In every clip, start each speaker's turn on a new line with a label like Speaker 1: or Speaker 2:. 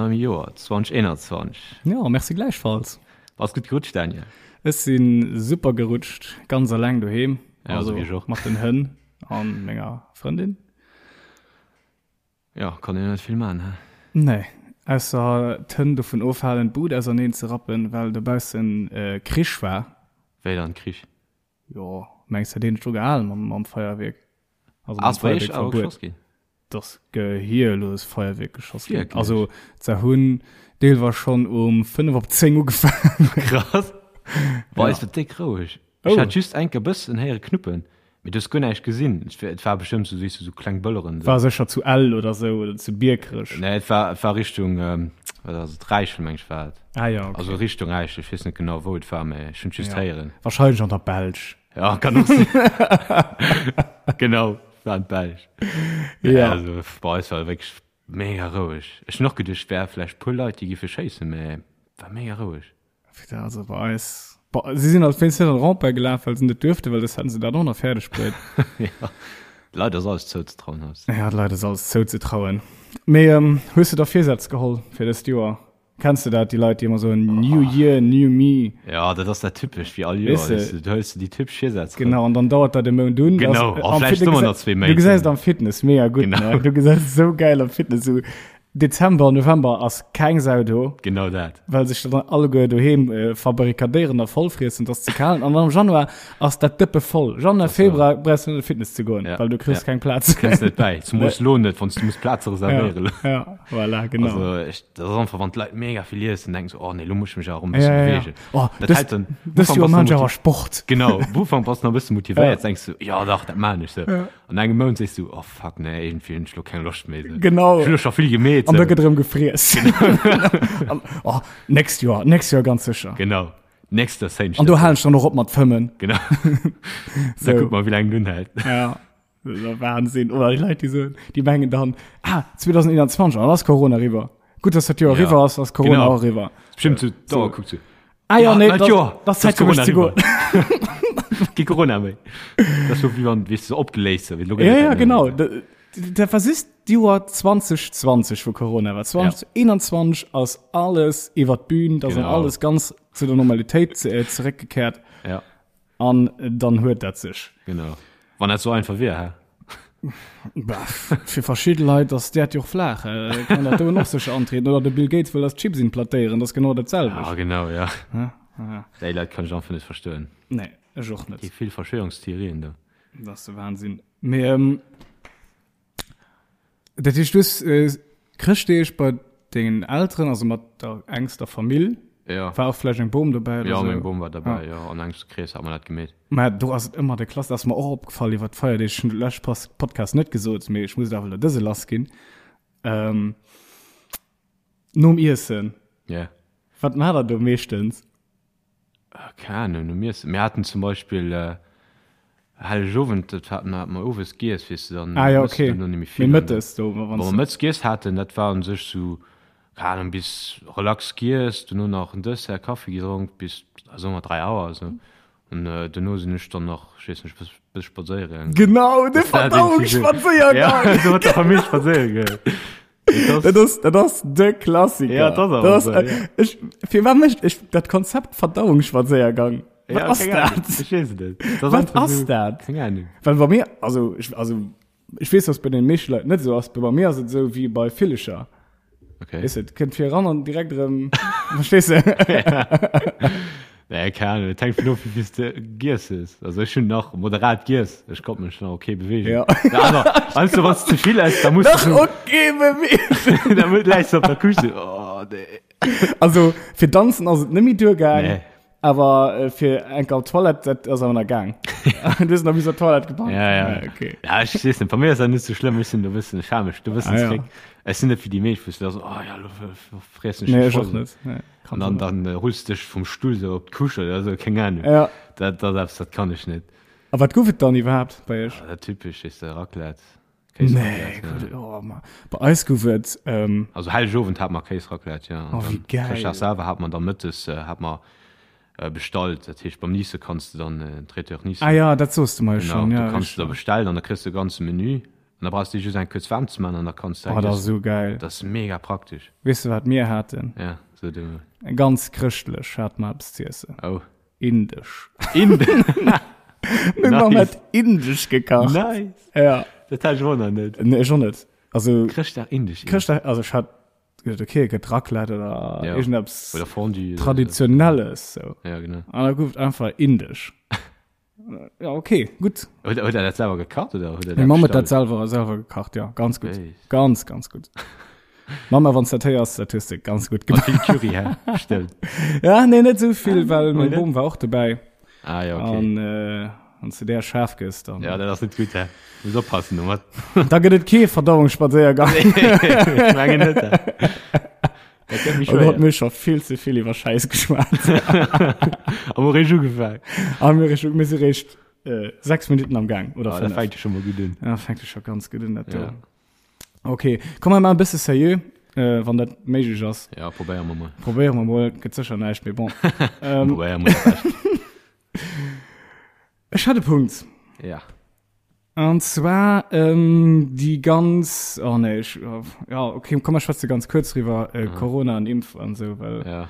Speaker 1: neuem Joer 2021.
Speaker 2: Ja, merci gläichfalls.
Speaker 1: Bass gutt gerutscht, Daniel?
Speaker 2: Ech si super gerutscht, ganz alleng doheem.
Speaker 1: Ja, also, wéi ech och.
Speaker 2: Mat den Hënn an menger Frëndin.
Speaker 1: Ja, kann een net vill man, he?
Speaker 2: Nee, ausser d'Hënn dovun ofhalen, d'Bud auserneen ze rappen, well dobaussen Krich war.
Speaker 1: Wéi dann Krich?
Speaker 2: Jo, mengs hätt een dech dru gehalen mam, mam Feierwierk?
Speaker 1: Also mam Feierwierkverbuet.
Speaker 2: Dass gehierlos Feierwierk geschoss ginn. Also se hunn deelweis schonn um 5 op 10 ugefaangen.
Speaker 1: Krass. Bei eis war déck roueg. Ech hat just enker bëssen héiere knuppen, mee du hues guer näischt gesinn. Et war bestëmmt sou, weess du, sou kleng Bëlleren.
Speaker 2: War sécher zu Ell oder sou oder zu Biekerech.
Speaker 1: Nee, et war, et war Richtung, wat ass et, Räichel meng ech war et.
Speaker 2: Ah ja, okay.
Speaker 1: Also Richtung Räichel, ech weess net genau wou et war, mee ech hunn et just
Speaker 2: ja.
Speaker 1: héieren.
Speaker 2: Wahrscheinlech an der Belsch.
Speaker 1: Ja, kann och sinn. Genau, war an d'Belsch.
Speaker 2: Ja.
Speaker 1: Also bei eis war et wierklech mega roueg. Ech hunn och geduecht, et wär vläicht puer Leit, déi giffe schéissen, mee war mega roueg.
Speaker 2: Putain, also bei eis, bei, si sinn als wéinst net an Rempart gelaf, well se net duerften, well soss hätten se dat och nach fäerdeg bruet.
Speaker 1: Ja, d'Leit ass alles zouzetrauen haut.
Speaker 2: Ja, d'Leit ass alles zouzetrauen. Mee ähm, hues de da Virsätz geholl fir dëst Joer? Kenns de dat, déi Leit, déi ëmmer soen, New Year, New Me?
Speaker 1: Ja, dat ass dat typesch wéi all Joer,
Speaker 2: Weess de?
Speaker 1: weess de, du hëls de déi typesch Virsätz erëm.
Speaker 2: Genau, an dann dauert dat e Mount un.
Speaker 1: Genau,
Speaker 2: Das,
Speaker 1: a
Speaker 2: am
Speaker 1: vläicht
Speaker 2: Fit- du
Speaker 1: ëmmer
Speaker 2: gesäis-
Speaker 1: nach zwee Méint.
Speaker 2: Du gesäis et am Fitness mega gutt,
Speaker 1: Genau.
Speaker 2: ne? Du gesäis et sou gäil am Fitness, sou Dezember, November ass keng Sau do.
Speaker 1: Genau dat.
Speaker 2: Well sech dann alleguer doheem äh, verbarrikadéieren a vollfriessen, dass ze kal. An am Januar ass dat Dëppe voll. Januar, Februar brauchst du net Fitness ze goen,
Speaker 1: ja.
Speaker 2: well du kriss
Speaker 1: ja.
Speaker 2: keng Plaz.
Speaker 1: Kënns net bäi. Zumoos lo net, wann du muss Plaze reservéieren.
Speaker 2: Ja, ja, voilà, genau.
Speaker 1: Also, ech, dat ass einfach, wann d'Leit mega vill iessen, denken se, oh nee, lo muss ich mech awer e bëssen
Speaker 2: ja, ja,
Speaker 1: bewegen.
Speaker 2: Ja. Oh,
Speaker 1: dat
Speaker 2: dës,
Speaker 1: hält dann,
Speaker 2: dës Joer maan ech awer Sport.
Speaker 1: Genau, am Ufank bass du nach e bësse motivéiert,
Speaker 2: ja.
Speaker 1: denkst du, ja dach, dat maan ech. So.
Speaker 2: Ja.
Speaker 1: An engem Mount sees du, oh fuck, nee, irgendwie hunn ech lo keng Loscht méi. So.
Speaker 2: Genau.
Speaker 1: Ech hunn lo scho vill gemeet.
Speaker 2: An da gëtt erëm gefriess. An, oh, nächst Joer, nächst Joer ganz sécher.
Speaker 1: Genau. Nächst Joer séin
Speaker 2: An do halen ech dann och op mat fëmmen.
Speaker 1: Genau. Da
Speaker 2: So.
Speaker 1: kuck mal, wéi laang et unhält.
Speaker 2: Ja. Das ist der Wahnsinn. Oder déi Leit, déi soen, déi mengen dann, ah, 2021, an ass Corona eriwwer. Gutt, dass dat Joer
Speaker 1: Ja.
Speaker 2: eriwwer ass, ass Corona
Speaker 1: Genau.
Speaker 2: och eriwwer.
Speaker 1: Bestimmt so, da kuckt so.
Speaker 2: Ah ja, nee,
Speaker 1: neit
Speaker 2: das,
Speaker 1: Joer,
Speaker 2: das Zäit fir mech ze goen.
Speaker 1: Kee Corona méi. Dat ass so wéi wann, weess du, so opgeléist, so wéi lo gëtt
Speaker 2: Ja,
Speaker 1: et
Speaker 2: ja,
Speaker 1: keng méi.
Speaker 2: genau. Dat war just d'Joer 2020, wou Corona war. 2021 ass alles iwwer d'Bühn, da ass
Speaker 1: Genau.
Speaker 2: alles ganz zu der Normalitéit ze, äh, zeréckgekehrt.
Speaker 1: Ja,
Speaker 2: An dann huet dat sech.
Speaker 1: genau. Wann dat so einfach wier, hä?
Speaker 2: Bah, fir verschidde Leit ass d'Äerd jo och flaach. Äh, kann dat doen och sécher antrieden. Oder de Bill Gates wëll eis Chips implantéieren, dat ass genau dat selwecht.
Speaker 1: Ah, genau, ja.
Speaker 2: Ja, ja.
Speaker 1: Déi Leit kann ech einfach net verstoen.
Speaker 2: Nee, ech och net.
Speaker 1: Déi vill Verschwörungstheorien do.
Speaker 2: Dat ass de Wahnsinn. Mee, ähm, Dat heescht, du hues äh, Chrëschtdeeg bei dengen Elteren, also mat der engster Famill,
Speaker 1: Ja.
Speaker 2: war och vläicht eng Bom dobäi oder
Speaker 1: Ja,
Speaker 2: sou?
Speaker 1: meng Bom war dabei,
Speaker 2: Ja.
Speaker 1: ja. An engem Krees hat mer dat gemeet.
Speaker 2: Mä do ass et ëmmer de Klass, dat ass mer och opgefall iwwer d'Feierdeeg, ech hunn de leschte Pas- Podcast net gesot, mee ech muss et awer elo dëse lass ginn. Ähm, nom Iessen,
Speaker 1: Ja.
Speaker 2: wat maacht der do meeschtens?
Speaker 1: Keng Ahnung, nom Iessen. Mir haten zum Beispill äh, Hellegowend, dat haten mer, mer owes giess, weess de, dann
Speaker 2: Ah ja,
Speaker 1: mëss de
Speaker 2: okay.
Speaker 1: duerno net méi
Speaker 2: Mee
Speaker 1: vill. An
Speaker 2: mëttes do, wa
Speaker 1: wa
Speaker 2: wann
Speaker 1: mer mëttes giess haten, dat war un sech sou, keng Ahnung, bis relax giess, duerno nach en Dessert, Kaffi gedronk, bis, soe mer 3 Auer esou. An duerno sinn ech dann nach, ech weess net, e bësse spadséiere gaangen.
Speaker 2: Genau, de
Speaker 1: Dat war irgendwie so.
Speaker 2: Verdauungsspadséiergang!
Speaker 1: Ja, so mat der Famill spadséiere goen. Dat ass,
Speaker 2: Dat ass, dat ass de Klassiker.
Speaker 1: Ja, dat ass awer
Speaker 2: Dat ass,
Speaker 1: so, ja.
Speaker 2: ech, firwat mécht ech dat Konzept Verdauungsspadséiergang? Wat
Speaker 1: ja,
Speaker 2: ass
Speaker 1: keng Ahnung.
Speaker 2: dat?
Speaker 1: Ech weess et net. Dat ass
Speaker 2: Wat
Speaker 1: einfach
Speaker 2: ass
Speaker 1: so,
Speaker 2: dat?
Speaker 1: Keng Ahnung.
Speaker 2: Well bei mir, also ech, also ech weess, dass bei den meeschte Leit net esou ass, mee bei mir ass et esou wéi bei Villecher.
Speaker 1: Okay.
Speaker 2: Weess de, et kënnt fir eran an direkt erëm, verstees de?
Speaker 1: Nee, keng Ahnung, et hänkt vun of, wéi vill s de giess hues. Also ech hunn nach moderat giess, ech konnt mech nach okay beweegen.
Speaker 2: Ja.
Speaker 1: Déi aner, weißt du, wann s de ze vill ess, da muss
Speaker 2: Nach
Speaker 1: du,
Speaker 2: okay bewegen.
Speaker 1: da mu- läis du op der Couche, oh nee.
Speaker 2: Also fir danzen ass et net méi duergaang.
Speaker 1: Nee.
Speaker 2: Awer äh, fir eng op Toilette, dat ass awer nach gaang. Du hues nach bis op Toilette gepackt.
Speaker 1: Ja, ja.
Speaker 2: Ah, okay.
Speaker 1: Ja, ech weess net, bei mir ass dat net sou schlëmm, ech sinn do e bëssen schameg, do e bëssen
Speaker 2: Ah, ja.
Speaker 1: zréck. Ech sinn net wéi déi meescht, wou s du da so, oh ja, lo friessen ech
Speaker 2: Nee,
Speaker 1: mech
Speaker 2: ech och
Speaker 1: voll.
Speaker 2: net. Nee,
Speaker 1: An dann, dann äh, rulls du dech vum Stull sou op d'Couche oder sou, keng Ahnung.
Speaker 2: Ja.
Speaker 1: Dat, dat ass eppes, dat kann ech net.
Speaker 2: A wat gouf et dann iwwerhaapt bei iech?
Speaker 1: Ja, dat typesch ist der Raclette.
Speaker 2: Nee,
Speaker 1: Kéisraclette,
Speaker 2: gut,
Speaker 1: ja.
Speaker 2: oh, ma. Bei eis gouf et ähm,
Speaker 1: Also Hellegowend hat mer Kéisraclette, ja. An
Speaker 2: Oh, wéi
Speaker 1: dann
Speaker 2: geil.
Speaker 1: Chrëschtdag selwer hat mer dann mëttes äh, hat mer äh, bestallt. Dat heescht beim Nice kanns du dann äh, Traiteur Nice.
Speaker 2: Ah ja, dat soos du mer jo
Speaker 1: Genau,
Speaker 2: schon.
Speaker 1: du
Speaker 2: Ja,
Speaker 1: kanns du da
Speaker 2: richtig.
Speaker 1: bestellen an da kriss du e ganze Menü. An da brauchs de just eng kuerz waarm ze man an da kanns de
Speaker 2: Oh, dat ass esou geil.
Speaker 1: Dat ass mega praktesch.
Speaker 2: Weess de wat mir haten?
Speaker 1: Ja, so du.
Speaker 2: Ganz chrëschtlech hate mer eppes z'iessen.
Speaker 1: Oh.
Speaker 2: Indesch.
Speaker 1: Indesch.
Speaker 2: Meng Mamm hat indesch gekacht.
Speaker 1: Nice.
Speaker 2: Ja.
Speaker 1: Dat hat ech och nach net.
Speaker 2: Nee, ech och net. Also
Speaker 1: Chrëschtdag indesch.
Speaker 2: Chrëschtdag, also ech hat gedacht, okay, et gëtt Raclette oder
Speaker 1: ja.
Speaker 2: irgendeppes
Speaker 1: oder Fondue
Speaker 2: Traditionelles. So.
Speaker 1: Ja, genau.
Speaker 2: An da gouf et einfach indesch. Ja, okay, gutt.
Speaker 1: Huet, huet er dat selwer gekacht oder huet er
Speaker 2: dat Meng Mamm huet dat selwer, selwer gekacht, ja, ganz gutt. Hey. Ganz, ganz gutt. Mama, wann du dat héiers, dat hues de ganz gutt
Speaker 1: gemaach. Vill Curry, hä? Bestimmt.
Speaker 2: Ja, nee, net sou vill, well meng Bom war och dobäi.
Speaker 1: Ah, ja, okay.
Speaker 2: An, äh, wann du där schaarf gëss, dann.
Speaker 1: Ja, dat ass net gutt, hä? Muss oppassen domat.
Speaker 2: Da gëtt et kee Verdauungsspadséiergang.
Speaker 1: Nee, mengen net. Hä? Dat gëtt méi
Speaker 2: Oh Gott,
Speaker 1: schwéier.
Speaker 2: mir scho vill ze vill iwwer Schäiss geschwat.
Speaker 1: A mir réischt ugefaangen.
Speaker 2: A mir réischt, mir si réischt äh, 6 Minuten am Gang oder
Speaker 1: Ah, dat
Speaker 2: 5.
Speaker 1: fänkt jo scho mol gutt un.
Speaker 2: Ja, fänkt jo scho ganz gutt un, dat do.
Speaker 1: Ja.
Speaker 2: Okay, komm mer maachen e bësse seriö, äh, wann dat méiglech ass.
Speaker 1: Ja, probéiere mer mol.
Speaker 2: Probéiere mer mol, gëtt sécher näischt, mee bon. Ähm,
Speaker 1: Probéiere mer dat Bescht.
Speaker 2: Ech hat e Punkt.
Speaker 1: Ja.
Speaker 2: An zwar ähm, déi ganz, oh nee, ech, ja, okay, komm, mer schwätze ganz kuerz driwwer, äh, Corona an Impf an esou, well
Speaker 1: Ja.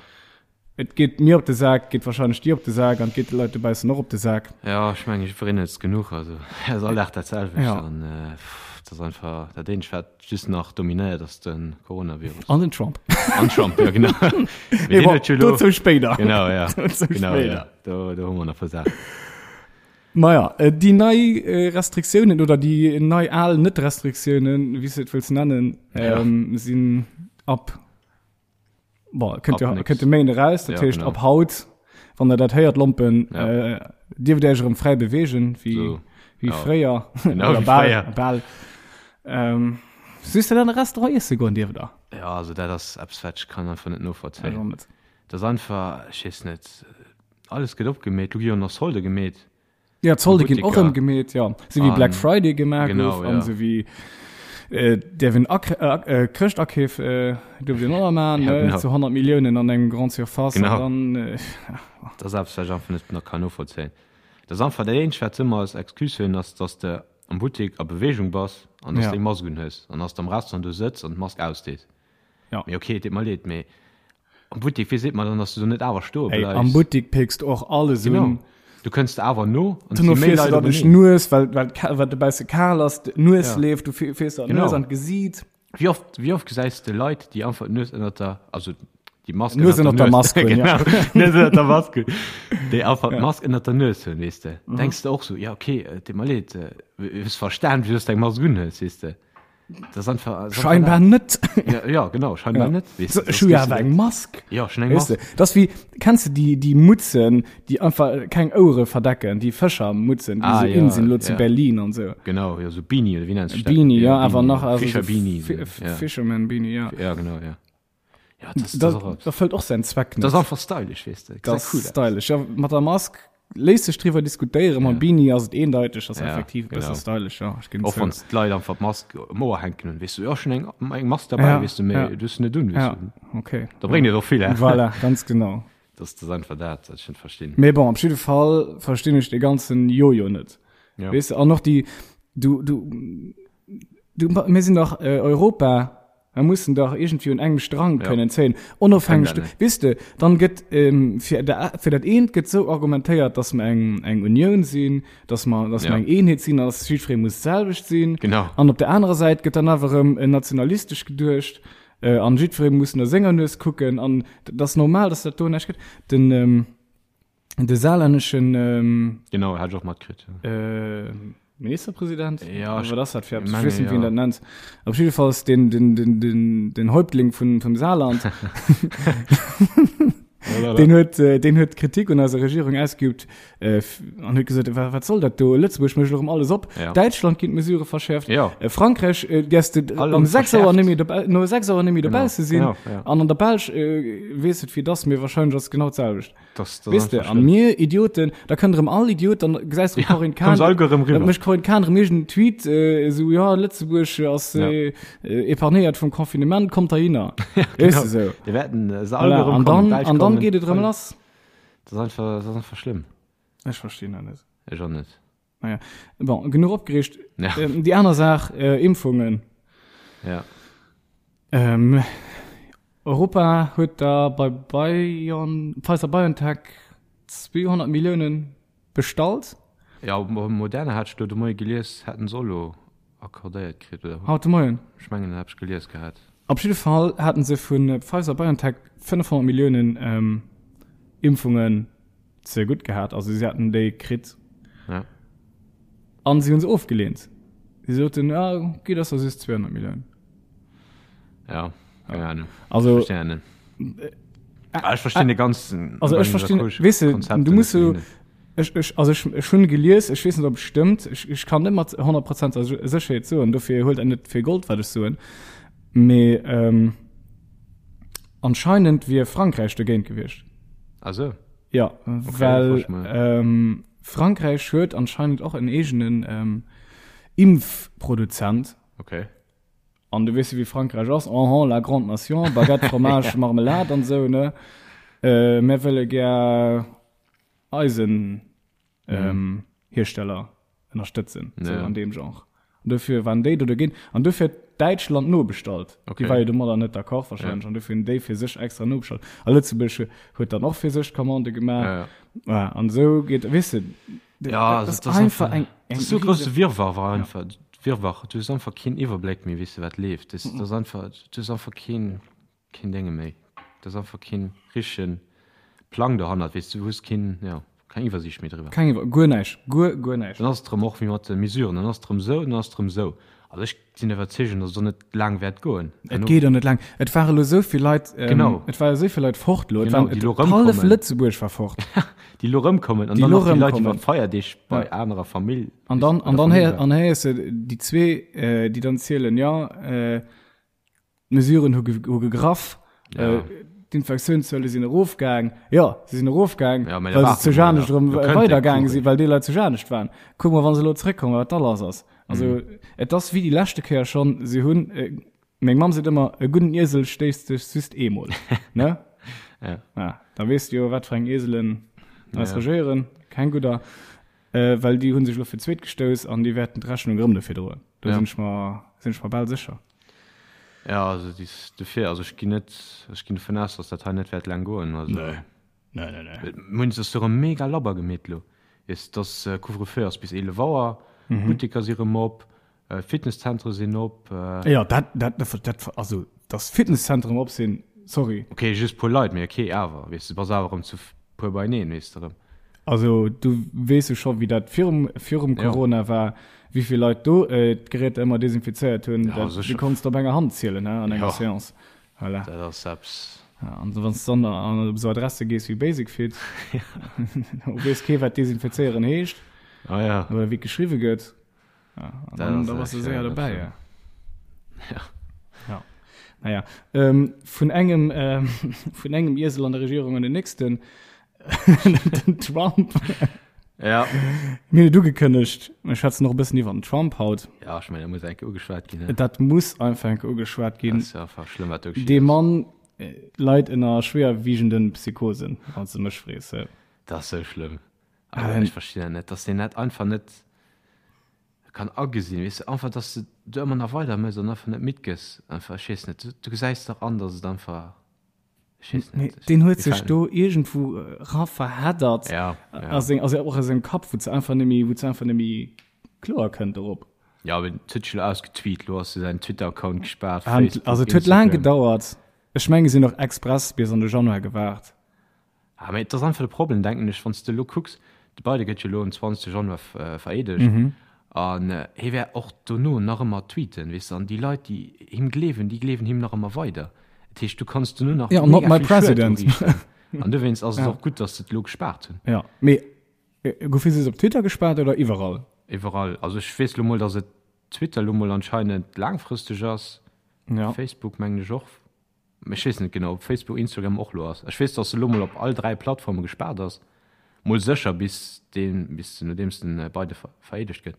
Speaker 2: et geet mir op de Sak, geet wahrscheinlech dir op de Sak an et geet de Leit dobaussen och op de Sak.
Speaker 1: Ja, ech mengen, jiddwereen huet es genuch, also et ass all Dag dat selwecht
Speaker 2: Ja.
Speaker 1: an äh, pff, et ass einfach dat eenzegt, wat just nach dominéiert, ass de Coronavirus.
Speaker 2: An den Trump.
Speaker 1: An Trump, ja genau. Mee
Speaker 2: Mee
Speaker 1: deen
Speaker 2: bon,
Speaker 1: huet jo elo-
Speaker 2: dozou spéider.
Speaker 1: Genau, ja.
Speaker 2: Dozou
Speaker 1: Genau,
Speaker 2: spéider.
Speaker 1: ja. Do, do hu mer nach e puer Saachen.
Speaker 2: Maja, déi nei Restriktiounen oder déi nei al Net-Restriktiounen, wéi s de et wëlls nennen,
Speaker 1: Ja.
Speaker 2: sinn ab, bon, kënnt
Speaker 1: Ab
Speaker 2: jo,
Speaker 1: nix.
Speaker 2: kënnt de Méinde eraus, dat
Speaker 1: Ja,
Speaker 2: heescht
Speaker 1: genau.
Speaker 2: ab haut, wann der dat héiert, Lompen,
Speaker 1: Ja.
Speaker 2: äh, dierft Iech erëm fräi beweegen, wéi,
Speaker 1: So.
Speaker 2: wéi
Speaker 1: Ja.
Speaker 2: fréier,
Speaker 1: Genau,
Speaker 2: oder
Speaker 1: wéi
Speaker 2: bal,
Speaker 1: fréier.
Speaker 2: bal. Ähm, Soos de dann e Restaurant iesse goen dierft der?
Speaker 1: Ja, also dat ass eppes, wat ech kann einfach net
Speaker 2: Ech
Speaker 1: novollzéien.
Speaker 2: och net.
Speaker 1: Dat ass einfach, ech weess net, alles gëtt opgemeet, lo gi jo nach Solde gemeet.
Speaker 2: Ja, d'Solde ginn och
Speaker 1: Buttiker.
Speaker 2: erëm gemeet, ja. Sou wéi Black
Speaker 1: An-
Speaker 2: Friday gemaach
Speaker 1: genau,
Speaker 2: gouf an
Speaker 1: ja.
Speaker 2: sou wéi äh, däerf een Ak äh, äh, Chrëschtakeef äh, duerft een och nach maachen,
Speaker 1: Ja,
Speaker 2: ne,
Speaker 1: genau.
Speaker 2: zu 100 Milliounen an engem Grande Surface
Speaker 1: Genau.
Speaker 2: an dann äh,
Speaker 1: Dat ass eppes, wat ech einfach net nach kann novollzéien. Dat ass einfach dat eenzegt, wat se ëmmer als Excuse hunn, ass, dass de am Buttek a Beweegung bass an dass
Speaker 2: Ja.
Speaker 1: de eng Mask unhues an dass de am Restaurant do sëtz an d'Mask ausdees.
Speaker 2: Ja.
Speaker 1: Mee okay, et deet mer leed, mee am Buttek, wéi seet mer dann, dass du do net awer stoe
Speaker 2: Ey,
Speaker 1: bleifs?
Speaker 2: am Buttek péckst du och alles
Speaker 1: Genau.
Speaker 2: un.
Speaker 1: Du kënns de awer no an et
Speaker 2: Duerno
Speaker 1: si méi
Speaker 2: fiers du
Speaker 1: Leit
Speaker 2: der duerch
Speaker 1: openeen.
Speaker 2: d'Nues, well, well, well et dobausse kal ass, d'Nues
Speaker 1: Ja.
Speaker 2: leeft, du fiers der
Speaker 1: Genau.
Speaker 2: d'Nues an d'Gesiit.
Speaker 1: Wéi oft, wéi oft gesäis de Leit, déi einfach d'Nues ënnert der, also déi Mask
Speaker 2: Nues ënnert der Mask hunn, ja.
Speaker 1: Genau, Nues ënnert der Mask hunn. Déi einfach d'Mask ënnert der Nues hunn, weess de.
Speaker 2: Mhm.
Speaker 1: Denks de och sou, ja okay, et deet mer leed, hues verstan, wéi s du eng Mask unhues, weess de. Das ist einfach, das ist
Speaker 2: Scheinbar
Speaker 1: einfach
Speaker 2: net.
Speaker 1: Ja, ja, genau, scheinbar
Speaker 2: Ja.
Speaker 1: net. Weißt
Speaker 2: So,
Speaker 1: du, das
Speaker 2: ech hu ja
Speaker 1: gehst du
Speaker 2: awer
Speaker 1: net.
Speaker 2: eng Mask.
Speaker 1: Ja, schon eng
Speaker 2: Weißt
Speaker 1: Mask.
Speaker 2: du, das wie, kennst du die, die Mutzen, die einfach keng Ouere verdecken, die Fëschermutzen, die
Speaker 1: Ah,
Speaker 2: so
Speaker 1: ja,
Speaker 2: in sind, lo zu
Speaker 1: ja.
Speaker 2: Berlin und so.
Speaker 1: Genau, ja, so Beanie, oder wie nennst du das?
Speaker 2: Beanie, ja, awer nach, also
Speaker 1: Fischer
Speaker 2: so
Speaker 1: Beanie.
Speaker 2: Fi-
Speaker 1: so, ja.
Speaker 2: Fisherman Beanie, ja.
Speaker 1: Ja, genau, ja. Ja, das, das,
Speaker 2: Das,
Speaker 1: ist auch,
Speaker 2: das erfüllt och säin Zweck net.
Speaker 1: das ist einfach stylisch, weißt du.
Speaker 2: Das
Speaker 1: Sieht cool aus.
Speaker 2: stylisch. Ja, mat der Mask léisst sech driwwer diskutéieren, mam
Speaker 1: Ja.
Speaker 2: Beanie ass et eendeiteg, ass
Speaker 1: Ja,
Speaker 2: effektiv e bësse
Speaker 1: genau.
Speaker 2: stylisch, ja, ech ginn
Speaker 1: Och
Speaker 2: zou.
Speaker 1: wann d'Leit einfach d'Mask um Ouer hänken hunn, weess du, ja, ech hunn eng, eng Mask dabei,
Speaker 2: Ja,
Speaker 1: weess du, mee
Speaker 2: ja.
Speaker 1: du hues se net un, weess
Speaker 2: Ja,
Speaker 1: du.
Speaker 2: okay.
Speaker 1: Da bréngt et och vill, hä?
Speaker 2: Voilà, ganz genau.
Speaker 1: Das, das ist einfach dat, wat ech net verstinn.
Speaker 2: Mee bon, op jidde Fall verstinn ech dee ganzen Jojo net.
Speaker 1: Ja.
Speaker 2: Weess de, an och déi, du, du, du, mir sinn dach äh, Europa, Mer mussen dach iergendwéi un engem Strang
Speaker 1: Ja.
Speaker 2: kënnen zéien, onofhängeg
Speaker 1: Kënnt
Speaker 2: du,
Speaker 1: dat net.
Speaker 2: weess de, dann gëtt ähm, fir, der, fir dat eent gëtt sou argumentéiert, dass mer eng, eng Unioun sinn, dass mer, dass
Speaker 1: Ja.
Speaker 2: mer eng Eenheet sinn an dass jiddweree muss d'selwecht sinn.
Speaker 1: Genau.
Speaker 2: An op der anerer Säit gëtt dann awer erëm äh, nationalistesch geduecht äh, an jiddweree muss no senger Nues kucken an dat ass normal, dass dat do näischt gëtt. Den, ähm, De saarlänneschen ähm,
Speaker 1: Genau, hat ech och matkritt. Ja.
Speaker 2: äh, Ministerpräsident?
Speaker 1: Ja,
Speaker 2: Oder was das für
Speaker 1: meine,
Speaker 2: Ich weiß nicht, wie
Speaker 1: ja.
Speaker 2: dat nennt. Op jeden Fall den, den, den, den, den Häuptling vun, vum Saarland, den huet, äh, den huet Kritik un eiser Regierung ausgeübt äh, an huet gesot, wat, wat soll dat do? Lëtzebuerg mécht erëm alles op.
Speaker 1: Ja.
Speaker 2: Däitschland ginn d'Mesurë verschäerft.
Speaker 1: Ja.
Speaker 2: Äh, Frankräich äh, däerfs de
Speaker 1: All
Speaker 2: um
Speaker 1: Land
Speaker 2: 6 Auer
Speaker 1: verschäerft.
Speaker 2: net méi dobau, no 6 Auer net méi dobausse sinn.
Speaker 1: Genau, ja.
Speaker 2: An an der Belsch äh, weess et wéi et ass, mee wahrscheinlech ass et genau d'selwecht.
Speaker 1: Das, das
Speaker 2: Weess de, an mir Idioten, da kënnt erëm all Idiot, dann gesäis du Corinne Cahen,
Speaker 1: kommen se alleguer erëm riwwer.
Speaker 2: da mécht Corinne Cahen erëm iergend en Tweet, äh, esou, ja, Lëtzebuerg ass
Speaker 1: Ja.
Speaker 2: äh, äh, épargnéiert vum Confinement, kommt heihinner.
Speaker 1: Ja,
Speaker 2: Weess
Speaker 1: genau.
Speaker 2: de sou.
Speaker 1: Déi wäerten äh, se
Speaker 2: Voilà.
Speaker 1: alleguer erëm
Speaker 2: An
Speaker 1: kommen,
Speaker 2: dann,
Speaker 1: d'Belsch
Speaker 2: an dann
Speaker 1: kommen.
Speaker 2: geet et erëm lass.
Speaker 1: Das ist einfach, das ist einfach schlimm.
Speaker 2: Ech verstinn dat net.
Speaker 1: Ech och net.
Speaker 2: Naja. Bon, genuch opgereegt. Ja. Ähm, déi aner Saach, äh, Impfungen.
Speaker 1: Ja.
Speaker 2: Ähm, Europa huet da bei Bion, Pfizer BioNTech 200 Milliounen bestallt.
Speaker 1: Ja, Moderna hat ech lo de Moie gelies, hätten se och lo accordéiert kritt, oder?
Speaker 2: Haut de Moien?
Speaker 1: Ech mengen, dat hat ech gelies gehat.
Speaker 2: Op jidde Fall haten se vu Pfizer BioNTech 500 Milliounen ähm, Impfungen ze gutt gehat, also si haten déi kritt.
Speaker 1: Ja.
Speaker 2: An si hunn se ofgeleent. Si soten, ja, okay, dat ass da just 200 Milliounen.
Speaker 1: Ja, keine Ahnung.
Speaker 2: Also,
Speaker 1: Ich verstehe nicht. Ah, ich verstehe den ganzen.
Speaker 2: Also ech verstinn, weess de, du muss so, ech, ech, also ech, ech hunn gelies, ech weess net ob et stëmmt, ech, ech kann net mat 100 Prozent Sécherheet soen, dofir huelt dat net fir Gold wat ech soen, mee ähm, anscheinend wier Frankräich dogéint gewiescht.
Speaker 1: Ah sou.
Speaker 2: Ja, okay, well ähm, Frankräich huet anscheinend och en eegenen ähm, Impfproduzent.
Speaker 1: Okay.
Speaker 2: An du weess jo wéi Frankräich ass, en la grande nation, Baguette, Fromage, Marmelade an esou, ne? Äh, mär wëlle gär eisen ähm, Hiersteller ënnerstëtzen, sou
Speaker 1: Ja.
Speaker 2: an deem Genre. An dofir waren déi do dogéint. An dofir huet Däitschland nobestallt.
Speaker 1: Okay.
Speaker 2: Déi war jo domadder net d'accord wahrscheinlech. An dofir hunn déi fir sech extra nobestallt. A Lëtzebuerg huet dann och fir sech d'Commande gemaach.
Speaker 1: Ja, ja.
Speaker 2: Ja, an esou geet, weess de,
Speaker 1: Ja,
Speaker 2: dat ass einfach eng,
Speaker 1: eng so grosse Wirrwarr war einfach ja. Wirrwarr. Du hues einfach keen Iwwerbléck méi, weess de wat leeft. Das, das einfach, du hues einfach keen, keen Dénge méi. Das einfach keen richtegen Plang dohannert, weess du, du hues keen, ja, keng Iwwersiicht méi driwwer.
Speaker 2: Keng Iwwer, guer näischt, guer, guer näischt.
Speaker 1: Dann ass et erëm och wéi mat de Mesuren, dann ass et erëm esou, dann ass et erëm esou. Also ech sinn der Iwwerzeegung, datt et och net laang wäert goen.
Speaker 2: Et geet och net laang. Et ware lo esou vill Leit, ähm,
Speaker 1: Genau.
Speaker 2: et ware esou vill Leit fort lo. Et
Speaker 1: Genau,
Speaker 2: waren,
Speaker 1: déi
Speaker 2: et,
Speaker 1: lo
Speaker 2: hallef
Speaker 1: rëmkommen.
Speaker 2: Lëtzebuerg war fort.
Speaker 1: Déi lo rëmkommen an
Speaker 2: Déi
Speaker 1: dann
Speaker 2: lo
Speaker 1: nach déi Leit
Speaker 2: rëmkommen.
Speaker 1: iwwer d'Feierdeeg bei
Speaker 2: Ja.
Speaker 1: anerer Famill.
Speaker 2: An dann,
Speaker 1: bei
Speaker 2: an
Speaker 1: der
Speaker 2: dann
Speaker 1: Famill
Speaker 2: héier,
Speaker 1: waren.
Speaker 2: an héiers de déi zwee, äh, déi dann zielen, ja, äh, D'Mesuren hu hu gegraff.
Speaker 1: Ja.
Speaker 2: Äh, D'Infektiounszuele sinn erofgaang. Jo, se sinn erofgaang,
Speaker 1: Ja, mä da
Speaker 2: well se
Speaker 1: waarde
Speaker 2: zu
Speaker 1: mer
Speaker 2: Janescht
Speaker 1: nach.
Speaker 2: erëm
Speaker 1: Do kënnt
Speaker 2: weidergaang
Speaker 1: de
Speaker 2: sinn, well déi Leit zu Janescht waren. Kuck mol, wa se elo zeréckkommen, wat da lass ass. Also,
Speaker 1: Mhm.
Speaker 2: et ass wéi déi leschte Kéier schonn, se hunn, äh, meng Mamm seet ëmmer, e gudden Iesel stéisst sech just eemol. Ne?
Speaker 1: Ja.
Speaker 2: Ja, da weess de jo, wat fir eng Ieselen eis
Speaker 1: Ja.
Speaker 2: regéieren. Keng gudder. Äh, well déi hu sech elo fir d'zweet gestouss an déi wäerten d'Rechnung erëm dofir droen. Do
Speaker 1: Ja.
Speaker 2: sinn ech mer, sinn ech mer bal sécher.
Speaker 1: Ja, also dis dofir, also ech ginn net, ech ginn dovun aus, dass dat hei net wäert laang goen. Also,
Speaker 2: Nee. Nee, nee, nee.
Speaker 1: Mir hunn se erëm mega labber gemeet elo. Weess, dass Couvre-feu ass bis 11 Auer, d'Butteker si rëm op, d'Fitnesszentere sinn op.
Speaker 2: Jo, dat, dat, dat, also dass d'Fitnesszentren op sinn, sorry.
Speaker 1: Ok, just puer Leit, mee ok, awer, weess de, bass awer erëm zu puer beieneen, weess de erëm.
Speaker 2: Also du weess jo scho wéi dat virum, virum Corona war, wéi vill Leit do d'Geräter ëmmer desinfizéiert hunn.
Speaker 1: Ja,
Speaker 2: Dat, du
Speaker 1: sécher.
Speaker 2: konns op enger Hand zielen, he, an enger
Speaker 1: Ja.
Speaker 2: Seance. Voilà.
Speaker 1: Dat ass eppes.
Speaker 2: Ja, an wann s dann an op esou Adresse gees wéi Basic Fit, do weess kee wat desinfizéieren heescht
Speaker 1: Ah ja.
Speaker 2: oder wéi et geschriwwe gëtt. Ja, an
Speaker 1: Dat
Speaker 2: dann,
Speaker 1: ass
Speaker 2: da bass du
Speaker 1: echt,
Speaker 2: séier
Speaker 1: ja,
Speaker 2: dobäi,
Speaker 1: dat
Speaker 2: ja.
Speaker 1: Ja.
Speaker 2: Ja. Naja, ähm, vun engem, ähm, vun engem Iesel an der Regierung an den nächsten, den Trump.
Speaker 1: Ja.
Speaker 2: Mir hunn et ugekënnegt, mir schwätzen och e bëssen iwwer den Trump haut.
Speaker 1: Ja, ech mengen, dat muss eng Kéier ugeschwat ginn, ne?
Speaker 2: Dat muss einfach eng Kéier ugeschwat ginn.
Speaker 1: Dat ass jo einfach schlëmm, wat do geschitt
Speaker 2: Dee
Speaker 1: ass.
Speaker 2: Mann leit ënner schwéierwiegenden Psychosen, wann s de mech frees.
Speaker 1: Dat ass sou schlëmm. Also, ech verstinn dat net, dass deen dat einfach net kann agesinn, weess de, einfach, dass de do ëmmer nach weider méchs an einfach net midd gëss. Einfach, ech weess net, du gesäis dach an, dass et einfach, ech weess
Speaker 2: Nee,
Speaker 1: net.
Speaker 2: deen huet
Speaker 1: Mir
Speaker 2: sech
Speaker 1: fällt
Speaker 2: do iergendwou era verheddert.
Speaker 1: Ja, ja.
Speaker 2: A seng, also och a sengem Kapp, wou s einfach net méi, wou s einfach net méi kloer kënnt dorop.
Speaker 1: Ja, mee et huet sech elo ausgetweet, elo ass jo säin Twitter-Account gespaart,
Speaker 2: An,
Speaker 1: Facebook,
Speaker 2: also et huet laang
Speaker 1: Instagram.
Speaker 2: gedauert. Ech menge si hunn och express bis an de Januar gewaart.
Speaker 1: Ah, mee et ass einfach de Problem, denken ech, wann s de elo kucks, de Biden gëtt jo elo um 20 Januar vereedegt an hie wäert och dono nach ëmmer tweeten, weess de, an déi Leit, déi him gleewen, déi gleewen him nach ëmmer weider. Dat heescht, du kanns dono nach
Speaker 2: Ja, not
Speaker 1: mega
Speaker 2: my
Speaker 1: vill Schued
Speaker 2: president.
Speaker 1: uriichten. An dowéinst ass et och gutt, datt se et elo gespaart hunn.
Speaker 2: Ja, mee goufe se op Twitter gespaart oder iwwerall?
Speaker 1: Iwwerall. Also ech weess elo mol, datt et Twitter elo mol anscheinend laangfristeg ass,
Speaker 2: Ja.
Speaker 1: Facebook mengen ech och. Ech weess net genau, ob Facebook, Instagram och lo ass. Ech weess, dass se lo mol op all 3 Plattforme gespaart ass. Mol sécher bis deen, bis nodeems den Biden vereedegt gëtt.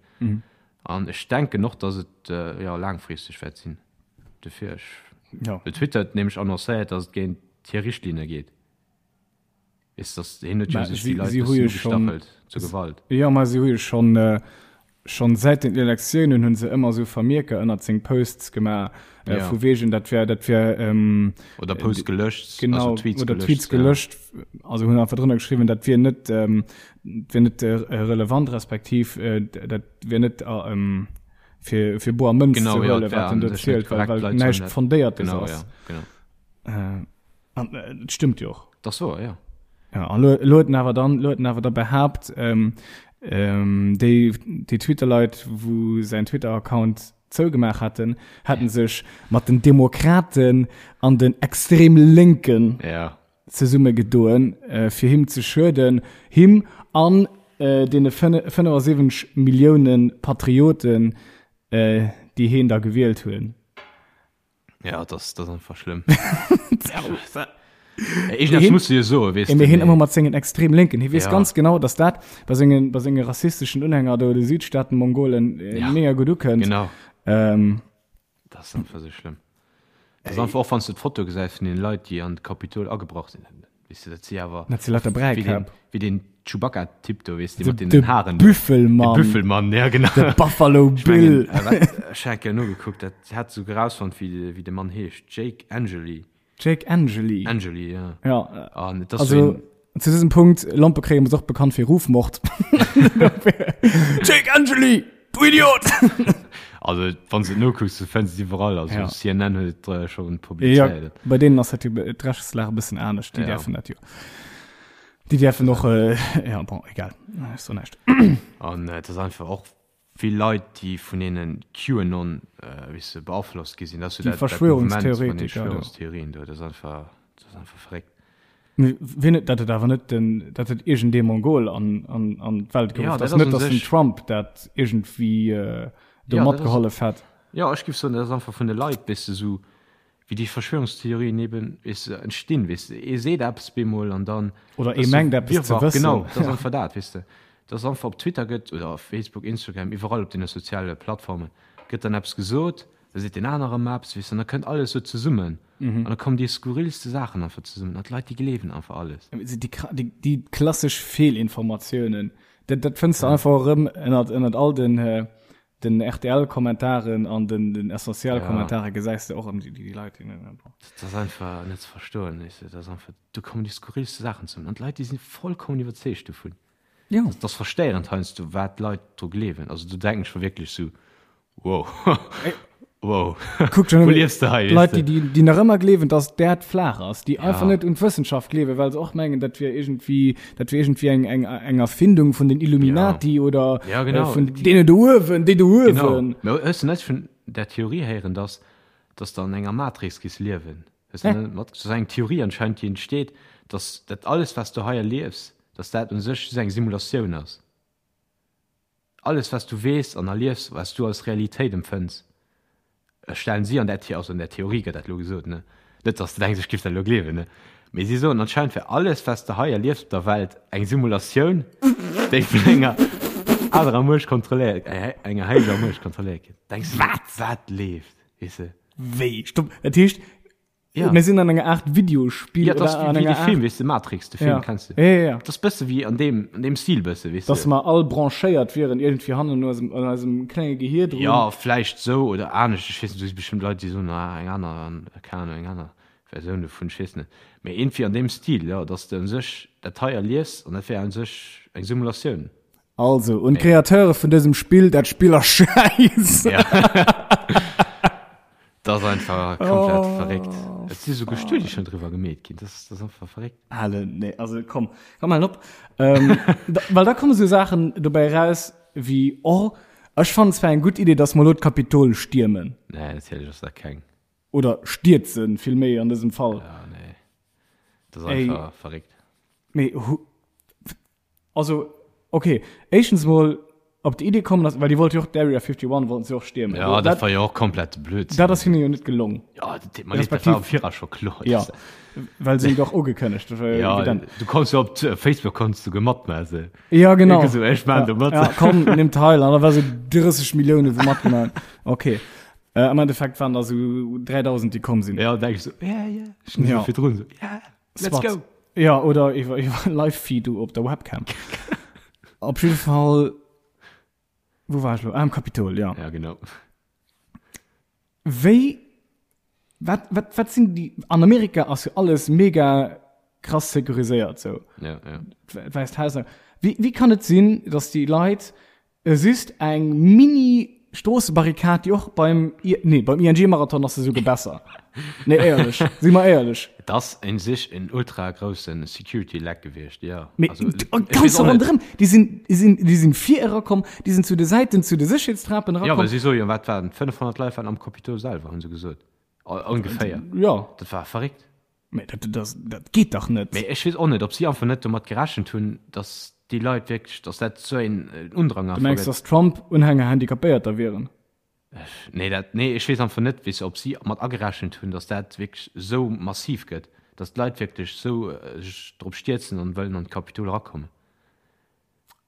Speaker 1: An ech denken och, dass et jo laangfristeg wäert sinn. Dofir ech,
Speaker 2: Ja.
Speaker 1: well Twitter huet nämlech annoncéiert, dass et géint hir Richtlinne geet. Weess dass hien huet jo
Speaker 2: Mä
Speaker 1: sech
Speaker 2: si
Speaker 1: déi Leit
Speaker 2: si hu
Speaker 1: bëssen
Speaker 2: jo schonn
Speaker 1: ugestachelt zur Gewalt.
Speaker 2: Jo, mä si hu jo schonn schonn säit den Elektiounen hu se ëmmer esou Vermierker ënnert seng Posts gemaach,
Speaker 1: Ja.
Speaker 2: vu wegen dat wär dat wär
Speaker 1: Oder Posts gelöscht,
Speaker 2: genau
Speaker 1: also Tweets
Speaker 2: oder
Speaker 1: gelöscht,
Speaker 2: Tweets
Speaker 1: ja.
Speaker 2: gelöscht, also hunn einfach drënner geschriwwen, dat wier net dat wier net relevant respektiv dat wier net fir fir boer Mënz
Speaker 1: Genau,
Speaker 2: ze
Speaker 1: ja,
Speaker 2: huelen,
Speaker 1: et wär
Speaker 2: wat en
Speaker 1: an
Speaker 2: do
Speaker 1: sech net
Speaker 2: zielt, well
Speaker 1: korrekt,
Speaker 2: well
Speaker 1: d'Leit sollen
Speaker 2: näischt
Speaker 1: dat
Speaker 2: Fondéiertes
Speaker 1: genau,
Speaker 2: ass.
Speaker 1: ja, genau.
Speaker 2: An et stëmmt jo och.
Speaker 1: Dat ass wouer, jo.
Speaker 2: Ja, an lo, lo huet en awer dann, lo huet en awer da behaapt, ähm, ähm, déi, déi Twitter-Leit, wou säin Twitter-Account zougemaach haten, hätten sech mat den Demokraten an den extrem Lénken
Speaker 1: Ja.
Speaker 2: zesummegedoen, äh, fir him ze schueden, him an äh, deene 75 Millioune Patrioten, äh, déi heen da gewielt hunn.
Speaker 1: Ja, das, das einfach schlimm. Ich das muss jo so
Speaker 2: weißt du, hin immer mat sengen extrem linken hi wees ja. ganz genau dass dat bei sengen bei senge rassistischen Unhänger do de Südstaaten Mongolen äh, ja. mega gut ukënnt
Speaker 1: genau
Speaker 2: ähm,
Speaker 1: das ist einfach so schlimm das ist einfach auch wann du d'Foto gesäis vun den Leit déi an d'Kapitol agebrach sinn Weess de, dat si awer.
Speaker 2: Dat si lauter Bräikäpp.
Speaker 1: Wéi den Chewbacca-Typ do, weess de, mat deenen Haren.
Speaker 2: De Büffelmann.
Speaker 1: De Büffelmann, ja, genau.
Speaker 2: De Buffalo Bill.
Speaker 1: Ech mengen, ech hat eng Kéier nogekuckt, dat hat souguer erausfonnt, wéi de Mann heescht. Jake Angeli.
Speaker 2: Jake Angeli.
Speaker 1: Angeli, ja.
Speaker 2: Ja.
Speaker 1: An et ass sou een.
Speaker 2: Zu dësem Punkt, Lompekréien ass och bekannt fir Rufmord. Jake Angeli! Du Idiot!
Speaker 1: Also, wann s de et nokucks, du fënns et iwwerall. Also,
Speaker 2: Ja.
Speaker 1: CNN huet et äh, schon
Speaker 2: Ja,
Speaker 1: publizéiert.
Speaker 2: bei deenen ass dat jo d'Rechtslag e bëssen anescht. Déi
Speaker 1: Ja.
Speaker 2: däerfen dat jo. Déi däerfen och, äh, ja, bon, egal. Ech soen näischt.
Speaker 1: An äh, et ass einfach och vill Leit, déi vun deene QAnon, äh, weess de, beaflosst gi sinn. Dat ass jo
Speaker 2: Déi
Speaker 1: dat, dat Mouvement vun den
Speaker 2: Verschwörungstheoretiker do.
Speaker 1: Verschwörungstheorien do. Dat ass einfach, dat ass einfach verréckt.
Speaker 2: Wien huet dat et awer net den dat huet iergendee Mongol an an an d'Welt
Speaker 1: Ja,
Speaker 2: geruff,
Speaker 1: dat
Speaker 2: dat
Speaker 1: ass
Speaker 2: net
Speaker 1: un
Speaker 2: datt den
Speaker 1: sech-
Speaker 2: Trump dat iergendwéi äh, do
Speaker 1: Ja, dat ass-
Speaker 2: matgehollef hätt.
Speaker 1: Ja, ech giff soen, dat ass einfach vun de Leit, weess de, sou wéi déi Verschwörungstheorien eben, weess de, entstinn, weess de. Ee seet eppes bemol an dann
Speaker 2: Oder ee
Speaker 1: ass sou
Speaker 2: mengt eppes ze
Speaker 1: Wirrwarr.
Speaker 2: wëssen.
Speaker 1: Genau, dat ass einfach dat, weess de. Dass einfach op Twitter gëtt oder op Facebook, Instagram, iwwerall op deene soziale Plattformen gëtt dann eppes gesot, da seet deen anere erëm eppes, weess de, an da kënnt alles sou zesummen. An da kommen déi skurrilste Saachen einfach zesummen an d'Leit, déi gleewen einfach alles.
Speaker 2: Déi, déi, déi klassesch Feelinformatiounen, dat, dat fënns de einfach erëm ënnert, ënnert all den, den RTL-Kommentaren an den, den Essentiel-Kommentare gesäis de och ëm déi, déi Leit, déi.
Speaker 1: Dat ass einfach net ze verstoen, weess de. Dat ass einfach, do kommen déi skurrilste Saachen zesummen an d'Leit, déi si vollkommen iwwerzeegt dovun.
Speaker 2: Jo.
Speaker 1: Dat ass verstéierend heiansdo, wat d'Leit dru gleewen. Also do denken ech mer wierklech sou, wow, wow,
Speaker 2: Kuck schon
Speaker 1: wou liefs de hei, weess
Speaker 2: Leit,
Speaker 1: de?
Speaker 2: déi, déi, déi nach ëmmer gleewen, dass d'Äerd flaach ass, déi einfach
Speaker 1: Ja.
Speaker 2: net un d'Wëssenschaft gleewen, well se och mengen, dat wier iergendwéi, dat wier iergendwéi eng, eng, eng Erfindung vun den Illuminati oder
Speaker 1: Ja, genau.
Speaker 2: äh, vun deene do uewen, déi do
Speaker 1: Genau.
Speaker 2: uewen.
Speaker 1: Mä hues de net vun där Theorie héieren, dass, dass de an enger Matrix giss liewen? Hues de net mat, dat ass eng Theorie anscheinend, déi entsteet, dass dat alles, wat s du hei erliefs, dass dat u sech just eng Simulatioun ass. Alles wat s du weess an erliefs, wat s du als Realitéit empfënns, stellen si an där, also an där Theorie gëtt dat elo gesot, ne, net dass de denks ech giff dat elo gleewen, ne, mee si soen anscheinend wär alles wat s de hei erliefs op der Welt eng Simulatioun, déi vun enger anerer Muecht kontrolléiert, enger héijer Muecht kontrolléiert gëtt. Denks du, wat, wat leeft, weess de?
Speaker 2: Wéi? Stopp, dat heescht,
Speaker 1: Ja.
Speaker 2: mir sinn an enger Art Videospiel
Speaker 1: Ja, das
Speaker 2: oder an
Speaker 1: wie, wie
Speaker 2: enger
Speaker 1: de Film,
Speaker 2: Art,
Speaker 1: weess de, Matrix, de Film
Speaker 2: ja.
Speaker 1: kennst du.
Speaker 2: Ja, ja, ja.
Speaker 1: Das bësse wie an deem, an deem Stil bësse, weess
Speaker 2: Dass
Speaker 1: de.
Speaker 2: mer all branchéiert wieren iergendwéi hannen un eisem, an eisem klenge Gehier drun.
Speaker 1: Ja, vläicht sou oder anescht, ech weess net, do si bestimmt Leit, déi soen, ah, eng aner, an, keng Ahnung, eng aner Versioun dovun, ech weess net. Mee iergendwéi an deem Stil, jo, dass de u sech dat hei erliefs an dat wär u sech eng Simulatioun.
Speaker 2: Also, un d'Createure vun dësem Spill, dat Spill ass schäiss!
Speaker 1: Ja. Dat ass einfach komplett
Speaker 2: Oh,
Speaker 1: verréckt. Et si souguer Studie schonn driwwer gemeet ginn. Dat ass, dat ass einfach verréckt.
Speaker 2: Halen, nee, also komm, komm halen op. Ähm, da, well da komme sou Saachen dobäi raus wéi, oh, ech fannen zwar eng gutt Idee, dass mer elo d'Kapitol stiermen.
Speaker 1: Nee, natierlech ass dat keng.
Speaker 2: Oder stierzen, vill méi an dësem Fall.
Speaker 1: Ja, nee. Dat ass
Speaker 2: Ey.
Speaker 1: einfach verréckt.
Speaker 2: Mee hu, Also, okay, éischtens mol op déi Idee kommen ass, well déi wollte jo och d'Area 51 wollten se och stiermen.
Speaker 1: Ja, dat war jo och komplett Blödsinn.
Speaker 2: Dat ass hinne jo net gelong.
Speaker 1: Ja, dat deet mer leed, dat war am Viraus scho kloer.
Speaker 2: Ja, well se jo och ugekënnegt,
Speaker 1: Ja,
Speaker 2: evident.
Speaker 1: du konns jo op Facebook konns du matmaachen.
Speaker 2: Ja, genau.
Speaker 1: Sou, ech maan do mat.
Speaker 2: Ja, komm, nimm teil. An da war sou 30 Milliounen, wou matgemaach hunn. Okay. Äh, am Endeffekt waren da sou 3000, déi komm sinn.
Speaker 1: Ja, denk ech sou, ja, ja, ech sinn
Speaker 2: Ja.
Speaker 1: sou virdrun sou, ja, let's
Speaker 2: Swat.
Speaker 1: go.
Speaker 2: Ja, oder iwwer, iwwer Live-Feed op der Webcam. Op jidde Fall, wou war ech lo? Ah, am Kapitol, ja.
Speaker 1: Ja, genau.
Speaker 2: Wéi, wat, wat, wat sinn déi, an Amerika ass jo alles mega krass securiséiert, sou.
Speaker 1: Ja, ja.
Speaker 2: D'Wäisst Haus. Wéi, wéi kann et sinn, dass déi Leit just eng mini Stroossebarrikad, déi och beim, nee, beim ING-Marathon ass se souguer besser. Nee, éierlech, si mer éierlech.
Speaker 1: Et ass un sech en ultra grousse Security Leck gewiescht, jo.
Speaker 2: Mee also, ganz ronderëm, déi sinn, déi sinn, déi sinn vir erakomm, déi sinn zu de Säiten, zu de Sécherheetstrapen
Speaker 1: erakomm. Jo, well si soe jo, wat waren et, 500 Leit waren am Capitol selwer, hu se gesot. Ongeféier.
Speaker 2: Jo.
Speaker 1: Dat war verréckt.
Speaker 2: Mee dat, dat, dat geet dach net.
Speaker 1: Mee ech weess och net, ob si einfach net domat gerechent hunn, datt déi Leit wierklech, datt dat esou een Undrang
Speaker 2: einfach gëtt. Du mengs, datt Trump-Unhänger Handicapéierter wieren?
Speaker 1: Nee, dat, nee, ech weess einfach net, weess de, ob si mat agerechent hunn, datt dat wierklech esou massiv gëtt, datt d'Leit wierklech esou sech drop stierzen an wëllen an d'Kapitol erakommen.